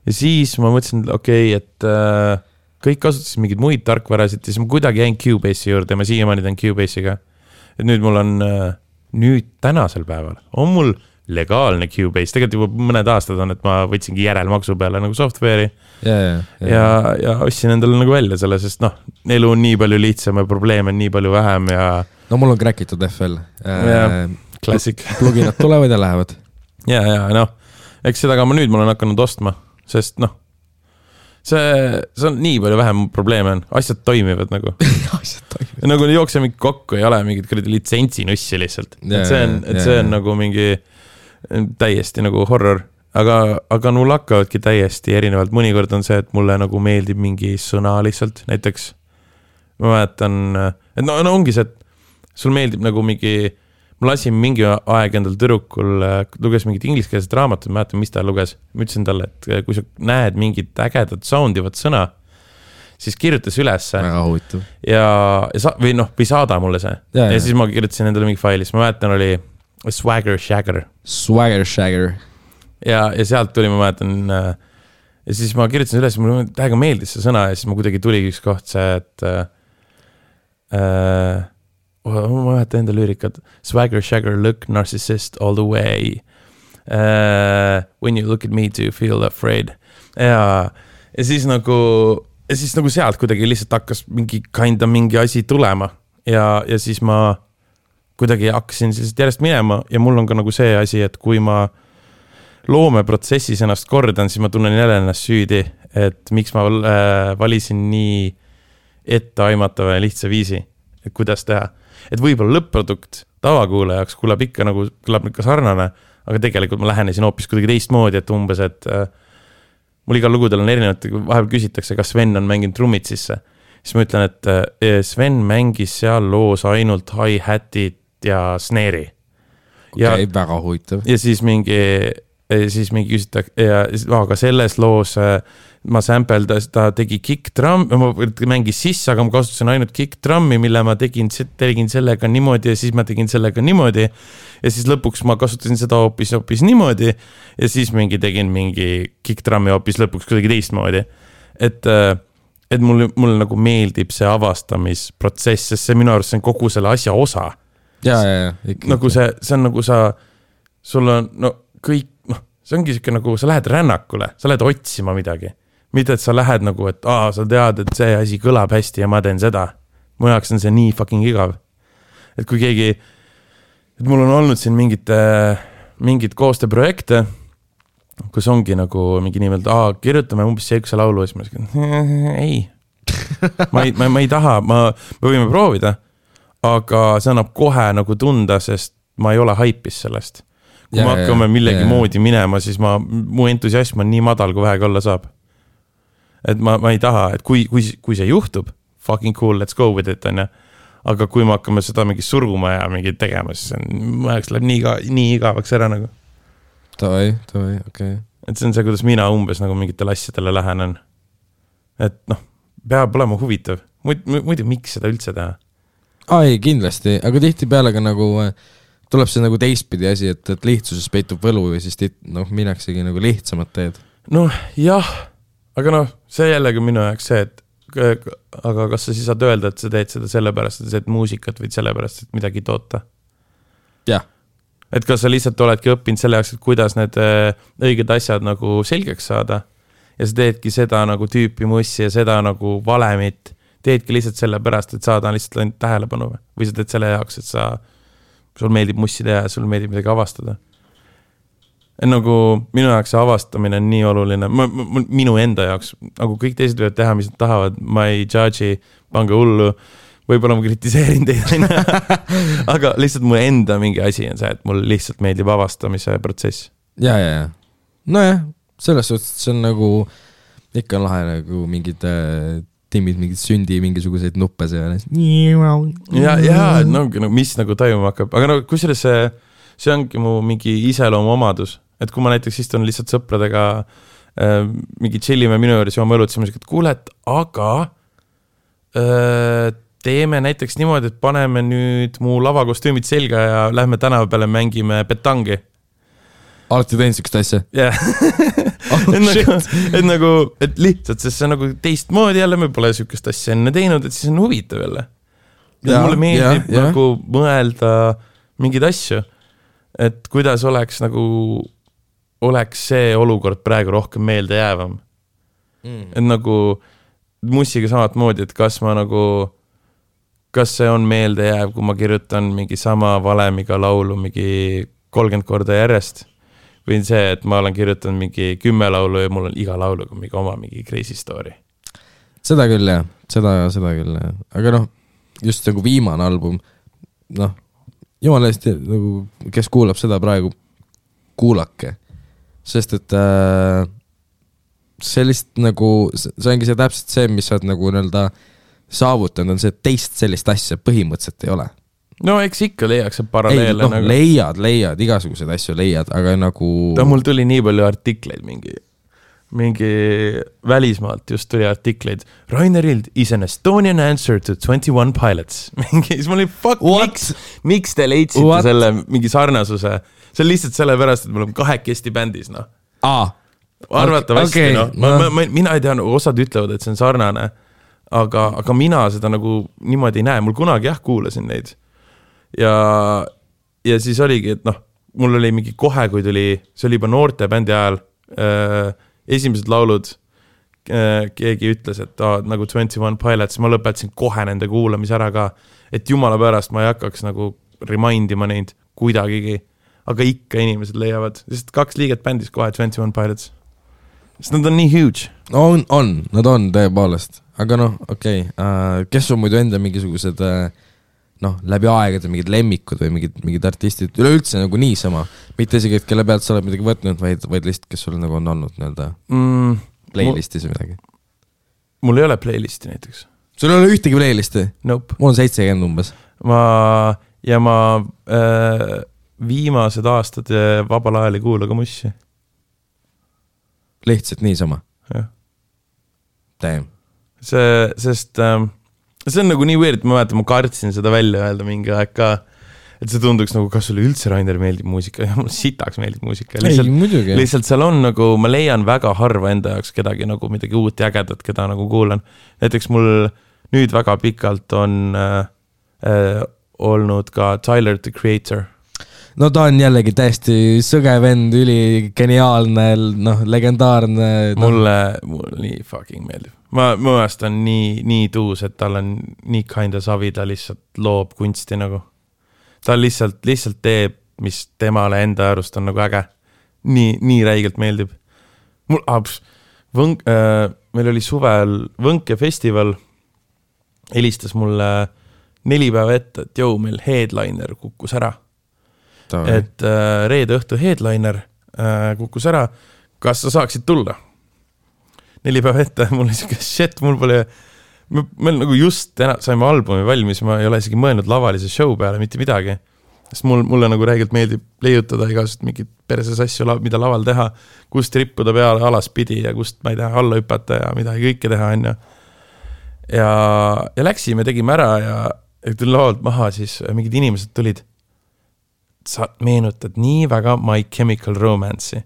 B: Ja siis ma mõtlesin, et kõik kasutasid mingid muid tarkvarasid, siis ma kuidagi jäin Cubase'i juurde ja ma siiamaani teen Cubase'iga. Et nüüd mul on, nüüd tänasel päeval on mul legaalne Cubase, tegelikult juba mõned aastad on, et ma võtsingi järelmaksu peale nagu software'i ja ostsin endale nagu välja selle, sest elu on nii palju lihtsam ja probleeme on nii palju vähem ja...
A: No mul on crackitud FL.
B: Classic.
A: Pluginad tulevad ja lähevad.
B: Ja, eks seda ka ma olen hakanud ostma, sest see on nii palju vähem probleeme on, asjad toimivad nagu. Nagu jookse mingi kokku, ei ole mingid litsensinussi lihtsalt. See on nagu mingi täiesti nagu horror, aga mul hakkavadki täiesti erinevalt. Mõnikord on see, et mulle nagu meeldib mingi sõna lihtsalt, näiteks ma mäletan, et ongi see, et sul meeldib nagu mingi, ma lasin mingi aeg endal tüdrukul, luges mingit ingliskeelset raamatut, ma mäletan, mis ta luges. Ma ütlesin talle, et kui sa näed mingit ägedat soundivat sõna, siis kirjutas ülesse või saada mulle see. Ja siis ma kirjutasin endale mingi failis, ma mäletan oli Swagger Shagger. Ja sealt tuli, ma mäletan, ja siis ma kirjutasin üles, mulle täiega meeldis see sõna ja siis ma kuidagi tuli üks koht see, et ma mäletan enda lüürikat. Swagger Shagger, look narcissist all the way. When you look at me, do you feel afraid? Ja siis nagu sealt kuidagi lihtsalt hakkas mingi asi tulema ja siis ma kuidagi hakkasin lihtsalt järjest minema ja mul on ka nagu see asi, et kui ma loomeprotsessis ennast kordan, siis ma tunnen jälle ennast süüdi, et miks ma valisin nii etteaimatava ja lihtsa viisi, et kuidas teha. Et võib-olla lõpp-produkt tavakuulajaks kõlab ikka sarnane, aga tegelikult ma lähenesin hoopis kuidagi teistmoodi, et umbes, et mul igal lugudel on erinevad, vahepeal küsitakse, kas Sven on mänginud trummid sisse. Siis ma ütlen, et Sven mängis seal loos ainult hi-hatit ja snare'i.
A: Okei, väga huvitav.
B: Ja siis mingi küsitakse, aga selles loos ma sample'das, ta tegi kick-drum, ma mängis sisse, aga ma kasutasin ainult kick-drummi, mille ma tegin sellega niimoodi ja siis ma tegin sellega niimoodi ja siis lõpuks ma kasutasin seda hoopis niimoodi ja siis tegin mingi kick-drummi hoopis lõpuks kuidagi teistmoodi. Et mulle nagu meeldib see avastamisprotsess, sest see minu arust see on kogu selle asja osa.
A: Ja.
B: Nagu see on nagu sul on kõik, see ongi siuke nagu, sa lähed rännakule, sa lähed otsima midagi. Mitte, et sa lähed nagu, et sa tead, et see asi kõlab hästi ja ma teen seda. Mu jaoks on see nii fucking igav. Et kui keegi, et mul on olnud siin mingid koostööprojekte, kus ongi nagu mingi nimelt, kirjutame umbes seekuse laulu ja siis ma ütlen, ei. ma ei taha, me võime proovida, aga see annab kohe nagu tunda, sest ma ei ole haipis sellest. Kui me hakkame millegi moodi minema, siis mu entusiasm on nii madal, kui vähega olla saab. Et ma ei taha, et kui see juhtub, fucking cool, let's go with it, on ja. aga kui me hakkame seda mingi suruma ja mingi tegema, siis mu ajaks läheb nii igavaks ära nagu.
A: Tavai, okei.
B: Et see on see, kuidas mina umbes nagu mingitele asjadele lähenen. Et noh, peab olema huvitav. Muidu miks seda üldse teha?
A: Ei, kindlasti, aga tihti peale ka nagu tuleb see nagu teistpidi asi, et lihtsuses peitub võlu või siis mineksegi nagu lihtsamat teed.
B: Noh, jah, aga see jällegi minu jaoks see, et aga kas sa siis saad öelda, et sa teed seda sellepärast, et sa teed muusikat või sellepärast, et midagi toota?
A: Jah.
B: Et kas sa lihtsalt oledki õppinud selle jaoks, et kuidas need õiged asjad nagu selgeks saada ja sa teedki seda nagu tüüpi mussi ja seda nagu valemit, teedki lihtsalt sellepärast, et saada lihtsalt ainult tähelepanu või sa teed selle jaoks, et sul meeldib mussi teha ja sul meeldib midagi avastada. Et nagu minu jaoks see avastamine on nii oluline, minu enda jaoks, nagu kõik teised võivad teha, mis nad tahavad, ma ei judge'i, pange hullu, võib-olla ma kritiseerin teid, aga lihtsalt mu enda mingi asi on see, et mul lihtsalt meeldib avastamise protsess.
A: Ja. Nojah, selles suhtes see on nagu, ikka on lahe nagu mingid tiimid, mingid sündi, mingisuguseid nuppe seal.
B: Ja, mis nagu tajuma hakkab, aga kusjuures see ongi mu mingi iseloomu omadus. Et kui ma näiteks istun lihtsalt sõpradega mingi chillime minu juures jooma õlut, siis et kuule, aga teeme näiteks niimoodi, et paneme nüüd mu lavakostüümid selga ja lähme tänava peale mängime petangi.
A: Alati teinud sükest asja?
B: Jah. Et lihtsalt, sest see on nagu teistmoodi jälle, me pole sükest asja enne teinud, et siis on huvitav jälle. Mulle meeldib nagu mõelda mingeid asju, et kuidas oleks see olukord praegu rohkem meelde jäävam. Et nagu mussiga samat moodi, et kas see on meelde jääv, kui ma kirjutan mingi sama valemiga laulu mingi 30 korda järjest või see, et ma olen kirjutanud mingi 10 laulu ja mul on iga lauluga mingi oma mingi crazy story.
A: Seda küll jah, seda küll jah. Aga just nagu viimane album, jumala eest, nagu, kes kuulab seda praegu, kuulake. Sest et sellist nagu, see ongi see täpselt see, mis sa oled nagu saavutanud, on see, et teist sellist asja põhimõtteliselt ei ole.
B: No eks ikka leiaks see paralleele.
A: Leiad, igasuguseid asju leiad, aga nagu...
B: Mul tuli nii palju artikleid mingi välismaalt just tuli artikleid. Rainer Hild is an Estonian answer to 21 Pilots. Siis mul oli, miks te leidsite selle mingi sarnasuse? See on lihtsalt sellepärast, et mul on 2 bändis, Arvatavasti, mina ei tea, osad ütlevad, et see on sarnane, aga mina seda nagu niimoodi ei näe. Mul kunagi kuulasin neid. Ja siis oligi, et mul oli mingi kohe, kui tuli, see oli juba noorte bändi ajal, esimesed laulud, keegi ütles, et nagu 21 Pilots, ma lõpetasin kohe nende kuulamise ära ka, et jumala pärast ma ei hakkaks nagu remindima neid kuidagigi, aga ikka inimesed leiavad, sest 2 liiget bändis kohe 21 Pilots. Sest nad on nii huge.
A: Nad on tõepoolest, aga okei. Kes on muidu enda mingisugused läbi aegade mingid lemmikud või mingid artistid, üleüldse nagu niisama, mitte isegi, et kelle pealt sa oled midagi võtnud, vaid lihtsalt, kes sul nagu on olnud playlistis või midagi.
B: Mul ei ole playlisti näiteks.
A: Sul ei ole ühtegi playlisti?
B: Nope.
A: Mul on 70 umbes.
B: Ma viimased aastad vabal ajal ei kuula ka mussi.
A: Lihtsalt niisama?
B: Jah.
A: Damn.
B: Sest see on nagu nii weird, ma mäletan, ma kartsin seda välja öelda mingi aeg ka, et see tunduks nagu, kas sulle üldse Rainer meeldib muusika, ja mul sitaks meeldib muusika. Lihtsalt seal on nagu, ma leian väga harva enda jaoks kedagi nagu midagi uut ja ägedat, keda nagu kuulan. Näiteks mul nüüd väga pikalt on olnud ka Tyler, the Creator.
A: No ta on jällegi täiesti sõge vend, üli geniaalne, legendaarne.
B: Mulle nii fucking meeldib. Ma mõnest on nii tuus, et tal on nii kinda savi, ta lihtsalt loob kunsti nagu. Ta lihtsalt teeb, mis temale enda arust on nagu äge. Nii räigelt meeldib. Meil oli suvel Võnke festival, helistas mulle 4 päeva ette, et meil headliner kukkus ära. Et reede õhtu headliner kukkus ära, kas sa saaksid tulla? 4 päeva ette, mul oli siuke shit, mul pole meil nagu just saime albumi valmis, ma ei ole isegi mõelnud lavalise show peale mitte midagi. Sest mulle nagu räägilt meeldib leiutada igasugust mingit perses asju, mida laval teha, kust rippuda peale alaspidi ja kust, ma ei tea, alla hüpata ja midagi kõike teha, on. Ja läksime, tegime ära ja tuli lavalt maha, siis mingid inimesed tulid. Sa meenutad nii väga My Chemical Romance'i.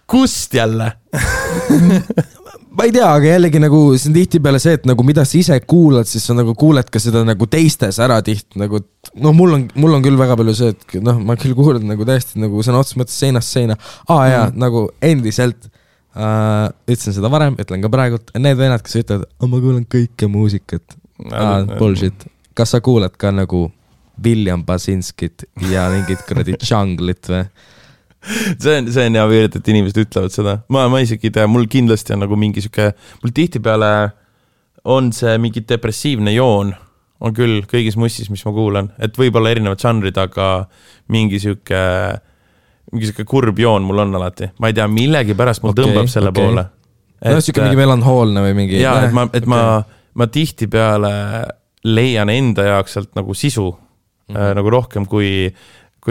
B: Kust jälle?
A: Ma ei tea, aga jällegi nagu see on tihti peale see, et nagu mida sa ise kuulad, siis sa nagu kuuled ka seda nagu teistes ära tihti nagu, no mul on küll väga palju see, et noh, ma küll kuulen nagu täiesti nagu sõna otseses mõttes seinast seina. Jaa, nagu endiselt ütlesin seda varem, ütlen ka praegult, need vennad, kes ütlevad, ma kuulen kõike muusikat. Bullshit. Kas sa kuuled ka nagu William Basinskit ja mingit kuradi Junglit või?
B: See on hea veerit, et inimesed ütlevad seda. Ma isegi ei tea, mul kindlasti on nagu mingi süke, mul tihtipeale on see mingi depressiivne joon, on küll kõigis mussis, mis ma kuulan, et võib-olla erinevad žanrid, aga mingi süke kurb joon mul on alati. Ma ei tea, millegi pärast mul tõmbab selle poole.
A: No süke mingi melanhoolne või mingi...
B: Jaa, et ma tihtipeale leian enda jaoks sealt nagu sisu, nagu rohkem kui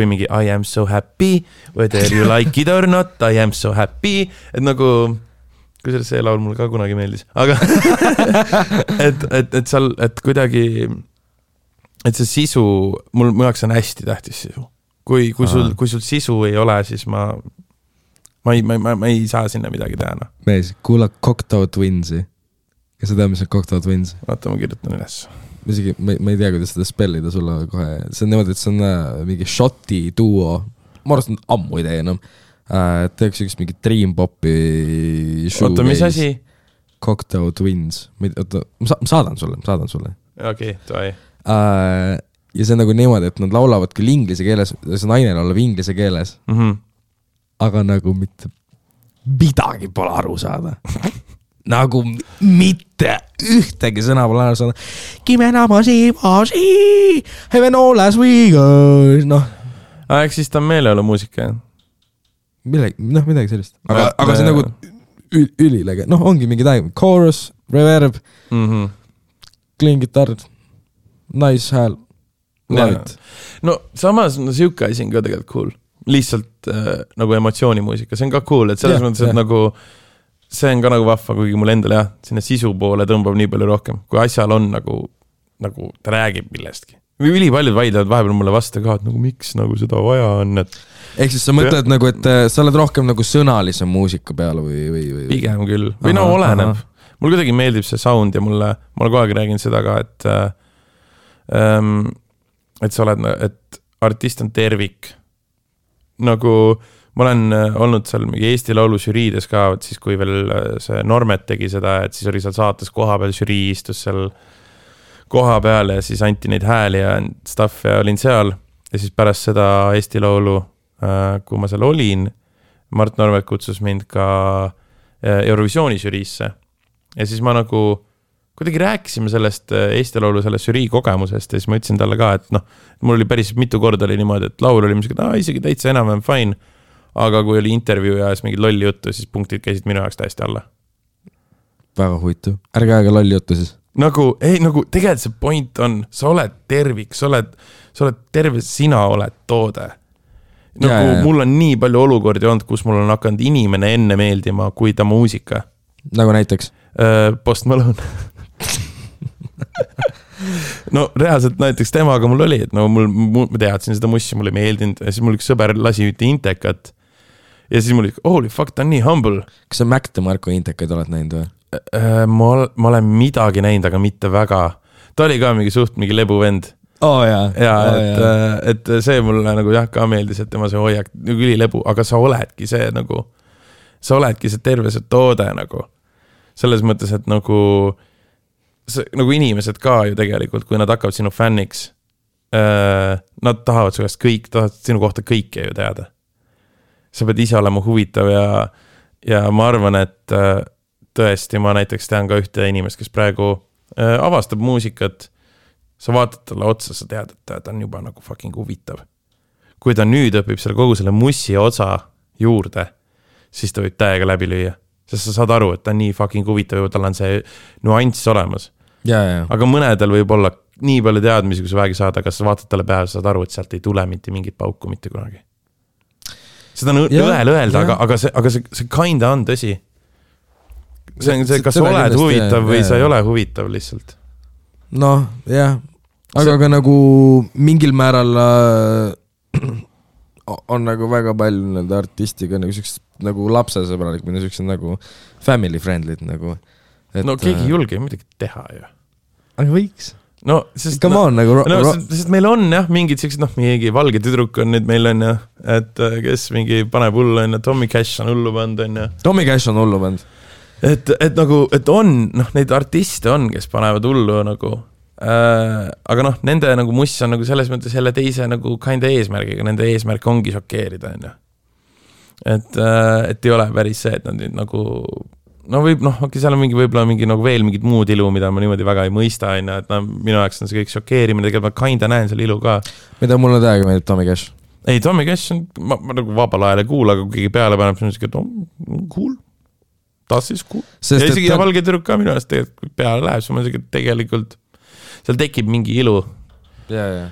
B: mingi I am so happy, whether you like it or not, I am so happy, et nagu, kui see laul mulle ka kunagi meeldis, aga et seal, et kuidagi, et see sisu, mul jaoks on hästi tähtis sisu. Kui sul sisu ei ole, siis ma ei saa sinna midagi teha. No.
A: Mees, kuula Cocteau Twinsi. Kas sa tead, mis on Cocteau Twins?
B: Vaata, ma kirjutan üles.
A: Ma ei tea, kuidas seda spellida sulle kohe. See on niimoodi, et see on mingi Shoti duo. Ma arvast on ammu ei tee enam. Teeks üks mingi Dream Popi
B: Oota, mis asi?
A: Cocteau Twins. Oota, ma saadan sulle.
B: Okei, tohi.
A: Ja see on nagu niimoodi, et nad laulavad küll inglise keeles, see naine laulab inglise keeles. Aga nagu mitte midagi pole aru saada. Nagu mitte ühtegi sõna pole aru saada. Kimenamasi, heaven all as we go. Noh.
B: Eks siis ta on meeleolu muusika.
A: Midagi sellist. Aga see nagu ülilege. Noh, ongi mingi täiega. Chorus, reverb, clean guitar, nice hääl.
B: No samas siuke asi on ka tegelikult cool. Lihtsalt nagu emotsioonimuusika. See on ka cool, et selles mõttes, et nagu see on ka nagu vahva, kuigi mul endal sinna sisu poole tõmbab nii palju rohkem. Kui asjal on nagu ta räägib millestki. Või ülipaljud vaidlevad vahepeal mulle vastu ka, et nagu miks nagu seda vaja on.
A: Ehk siis sa mõtled nagu, et sa oled rohkem nagu sõnalise muusika peale või?
B: Pigem küll. Või no oleneb. Mul kuidagi meeldib see sound ja ma kogu aeg räägin seda ka, et sa oled, et artist on tervik. Nagu ma olen olnud seal Eesti Laulu žüriides ka, siis kui veel see Normet tegi seda, et siis oli seal saates koha peal žürii istus seal koha peal ja siis anti neid hääli ja stuff ja olin seal. Ja siis pärast seda Eesti Laulu, kui ma seal olin, Mart Normet kutsus mind ka Eurovisiooni žüriisse. Ja siis ma nagu kuidagi rääkisime sellest Eesti Laulu sellest žürii kogemusest ja siis ma ütlesin talle ka, et noh, mul oli päris mitu korda oli niimoodi, et laul oli isegi täitsa enam fine. Aga kui oli intervjuu ja siis mingid lolli juttu, siis punktid käisid minu jaoks täiesti alla.
A: Väga huvitav. Ärge aega lolli juttu siis.
B: Nagu tegelikult see point on, sa oled tervik, sa oled terve, sina oled toode. Nagu mul on nii palju olukordi olnud, kus mul on hakanud inimene enne meeldima kui ta muusika.
A: Nagu näiteks?
B: Post Malone. No reaalselt näiteks temaga mul oli, et no ma teadsin seda mussi, mulle meeldinud ja siis mul üks sõber lasi ühte Intekat ja siis mul oli, holy fuck, ta on nii humble.
A: Kas sa Mac DeMarco Intekaid oled näinud või?
B: Ma olen midagi näinud, aga mitte väga. Ta oli ka mingi lebuvend. Et see mulle nagu ka meeldis, et tema see hoiak nagu ülilebu, aga sa oledki see nagu, sa oledki see terve see toode nagu. Selles mõttes, et nagu inimesed ka ju tegelikult, kui nad hakkavad sinu fänniks, nad tahavad su käest tahavad sinu kohta kõike ju teada. Sa pead ise olema huvitav ja ma arvan, et tõesti ma näiteks tean ka ühte inimest, kes praegu avastab muusikat. Sa vaatad talle otsa, sa tead, et ta on juba nagu fucking huvitav. Kui ta nüüd õpib selle kogu selle mussi osa juurde, siis ta võib täiega läbi lüüa. sest sa saad aru, et ta on nii fucking huvitav ja tal on see nüanss olemas.
A: Ja.
B: Aga mõnedel võib olla nii palju teadmisi, kui sa väegi saad, aga sa vaatad talle peale, saad aru, et sealt ei tule mitte mingit pauku mitte kunagi. Seda on õel öelda, aga see kinda on tõsi. See on see, kas sa oled huvitav või sa ei ole huvitav lihtsalt.
A: Noh, jah. Aga ka nagu mingil määral on nagu väga palju nende artistiga nagu sellised nagu lapsesõbralik, minu sellised nagu family friendly'd nagu.
B: No keegi ei julge midagi teha ju.
A: Aga võiks.
B: No, sest,
A: sest
B: meil on jah, mingid sellised, mingi valge tüdruk on nüüd meil on jah, et kes mingi paneb hullu on ja Tommy Cash on hullu pand on ja.
A: Tommy Cash on hullu pand.
B: Et nagu, et on, neid artiste on, kes panevad hullu nagu, aga nende nagu muss on nagu selles mõttes selle teise nagu kinda eesmärgiga, nende eesmärk ongi šokeerida on ja. Et ei ole päris see, et nad nüüd nagu seal on võib-olla mingi nagu veel mingid muud ilu, mida ma niimoodi väga ei mõista, et minu jaoks on see kõik šokeerimine, tegelikult ma kinda näen selle ilu ka.
A: Mida mulle täiega meeldib Tommy Cash?
B: Ei, Tommy Cash on, ma nagu vabal ajal ei kuula, aga kui keegi peale paneb, siis on cool. Tas siis cool. Ja isegi valge tüdruk ka minu ajast tegelikult peale läheb, siis ma tegelikult seal tekib mingi ilu.
A: Ja.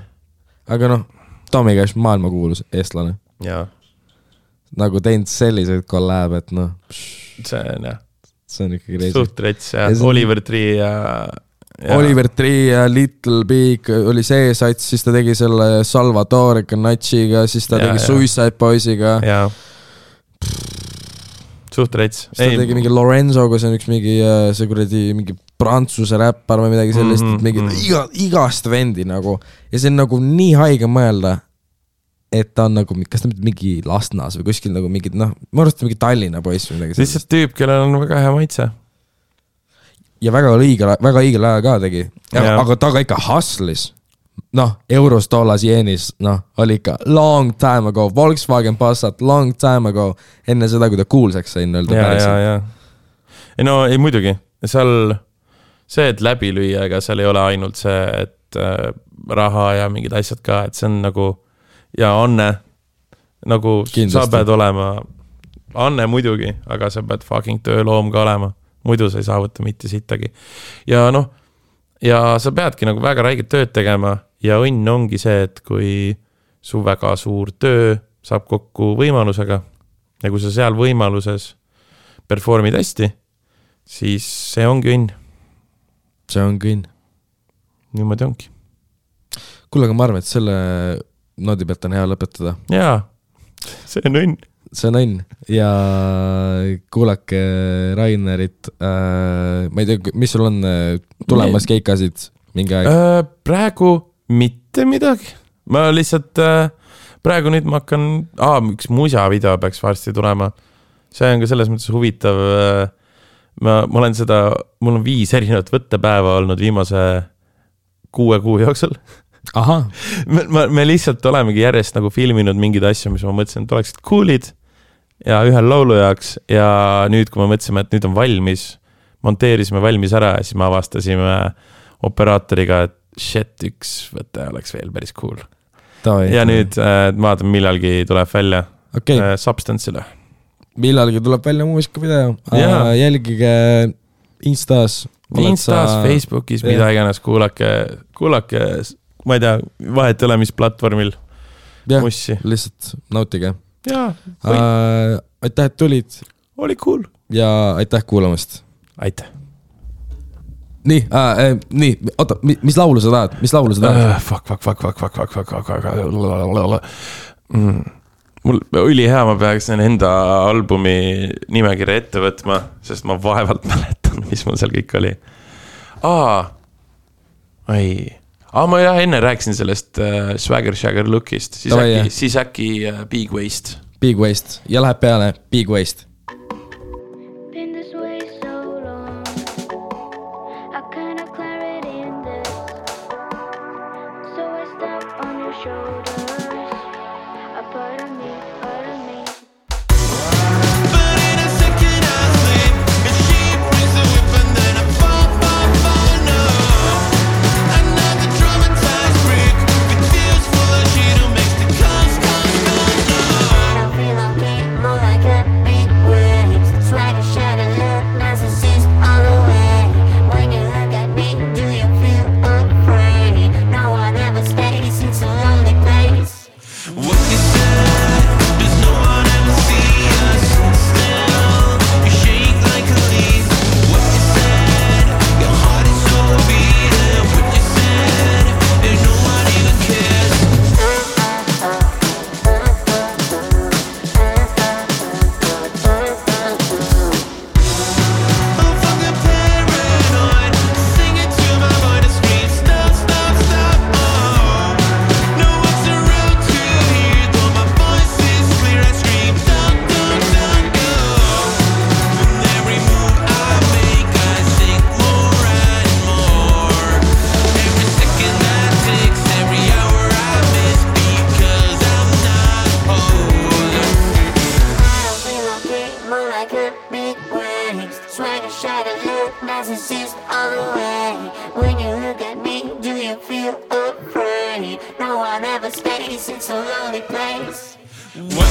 A: Aga Tommy Cash maailma kuulus eestlane.
B: Ja.
A: Nagu teinud selliseid kollab, et
B: see on jah.
A: See on ikkagi reisi.
B: Suht rets ja Oliver Tree ja
A: Oliver Tree ja Little Big oli see sats, siis ta tegi selle Salvatore Canacciga, siis ta tegi Suicide Boysiga.
B: Ja. Suht rets.
A: Siis ta tegi mingi Lorenzoga, see on üks mingi, see kuradi mingi prantsuse räppar või midagi sellist, mingi igast vendi nagu. Ja see on nagu nii haige mõelda, et ta on nagu, kas ta mingi Lastnas või kuskil nagu mingid, ma arvast mingi Tallinna poiss või midagi.
B: Lihtsalt tüüp, kellel on väga hea maitse.
A: Ja väga õigel ajal ka tegi. Aga ta ka ikka hustlis. Eurostolas jeenis, oli ikka long time ago. Volkswagen Passat, long time ago. Enne seda, kui ta kuulsaks sain öelda päriselt.
B: Ja. Ei muidugi. Seal see, et läbi lüüa, ega seal ei ole ainult see, et raha ja mingid asjad ka, et see on nagu ja Anne, nagu kindlasti. Sa pead olema, Anne muidugi, aga sa pead fucking tööloom ka olema, muidu sa ei saavuta mitte sittagi. Ja ja sa peadki nagu väga räiged tööd tegema ja õnn ongi see, et kui su väga suur töö saab kokku võimalusega ja kui sa seal võimaluses performid hästi, siis see ongi õnn.
A: See ongi õnn.
B: Niimoodi ongi.
A: Kuule, aga ma arvan, et selle noodi pealt on hea lõpetada.
B: Jaa, see on õnn.
A: See on õnn. Ja kuulake Rainerit. Ma ei tea, mis sul on tulemas keikasid mingi aeg?
B: Praegu mitte midagi. Ma lihtsalt, praegu nüüd ma hakkan, üks musa video peaks varsti tulema. See on ka selles mõttes huvitav. Ma olen mul on 5 erinevat võttepäeva olnud viimase 6 kuu jooksul.
A: Aha.
B: Me lihtsalt olemegi järjest nagu filminud mingid asju, mis ma mõtlesin, et oleksid coolid ja ühel laulu jaoks ja nüüd, kui me mõtlesime, et nüüd on valmis, monteerisime valmis ära ja siis me avastasime operaatoriga, et shit, üks võte oleks veel päris cool. Ja nüüd vaatame, millalgi tuleb välja Substance'ile.
A: Millalgi tuleb välja muusikavideo. Jälgige Instas,
B: Facebookis, mida iganes, kuulake ma ei tea, vahet ole, mis platvormil mussi.
A: Lihtsalt nautige.
B: Jaa.
A: Aitäh, et tulid.
B: Oli cool.
A: Ja aitäh kuulamast.
B: Aitäh.
A: Nii, oota, mis laulu sa tahad?
B: Fuck. Mul oli hea, ma peaks enda albumi nimekirja ette võtma, sest ma vaevalt mäletan, mis mul seal kõik oli. Ma enne rääkisin sellest Swagger Shagger lookist, siis äkki Big Waste.
A: Big Waste ja läheb peale Big Waste.
C: More like a big wave, swagger, shagger. peace in some lonely place. What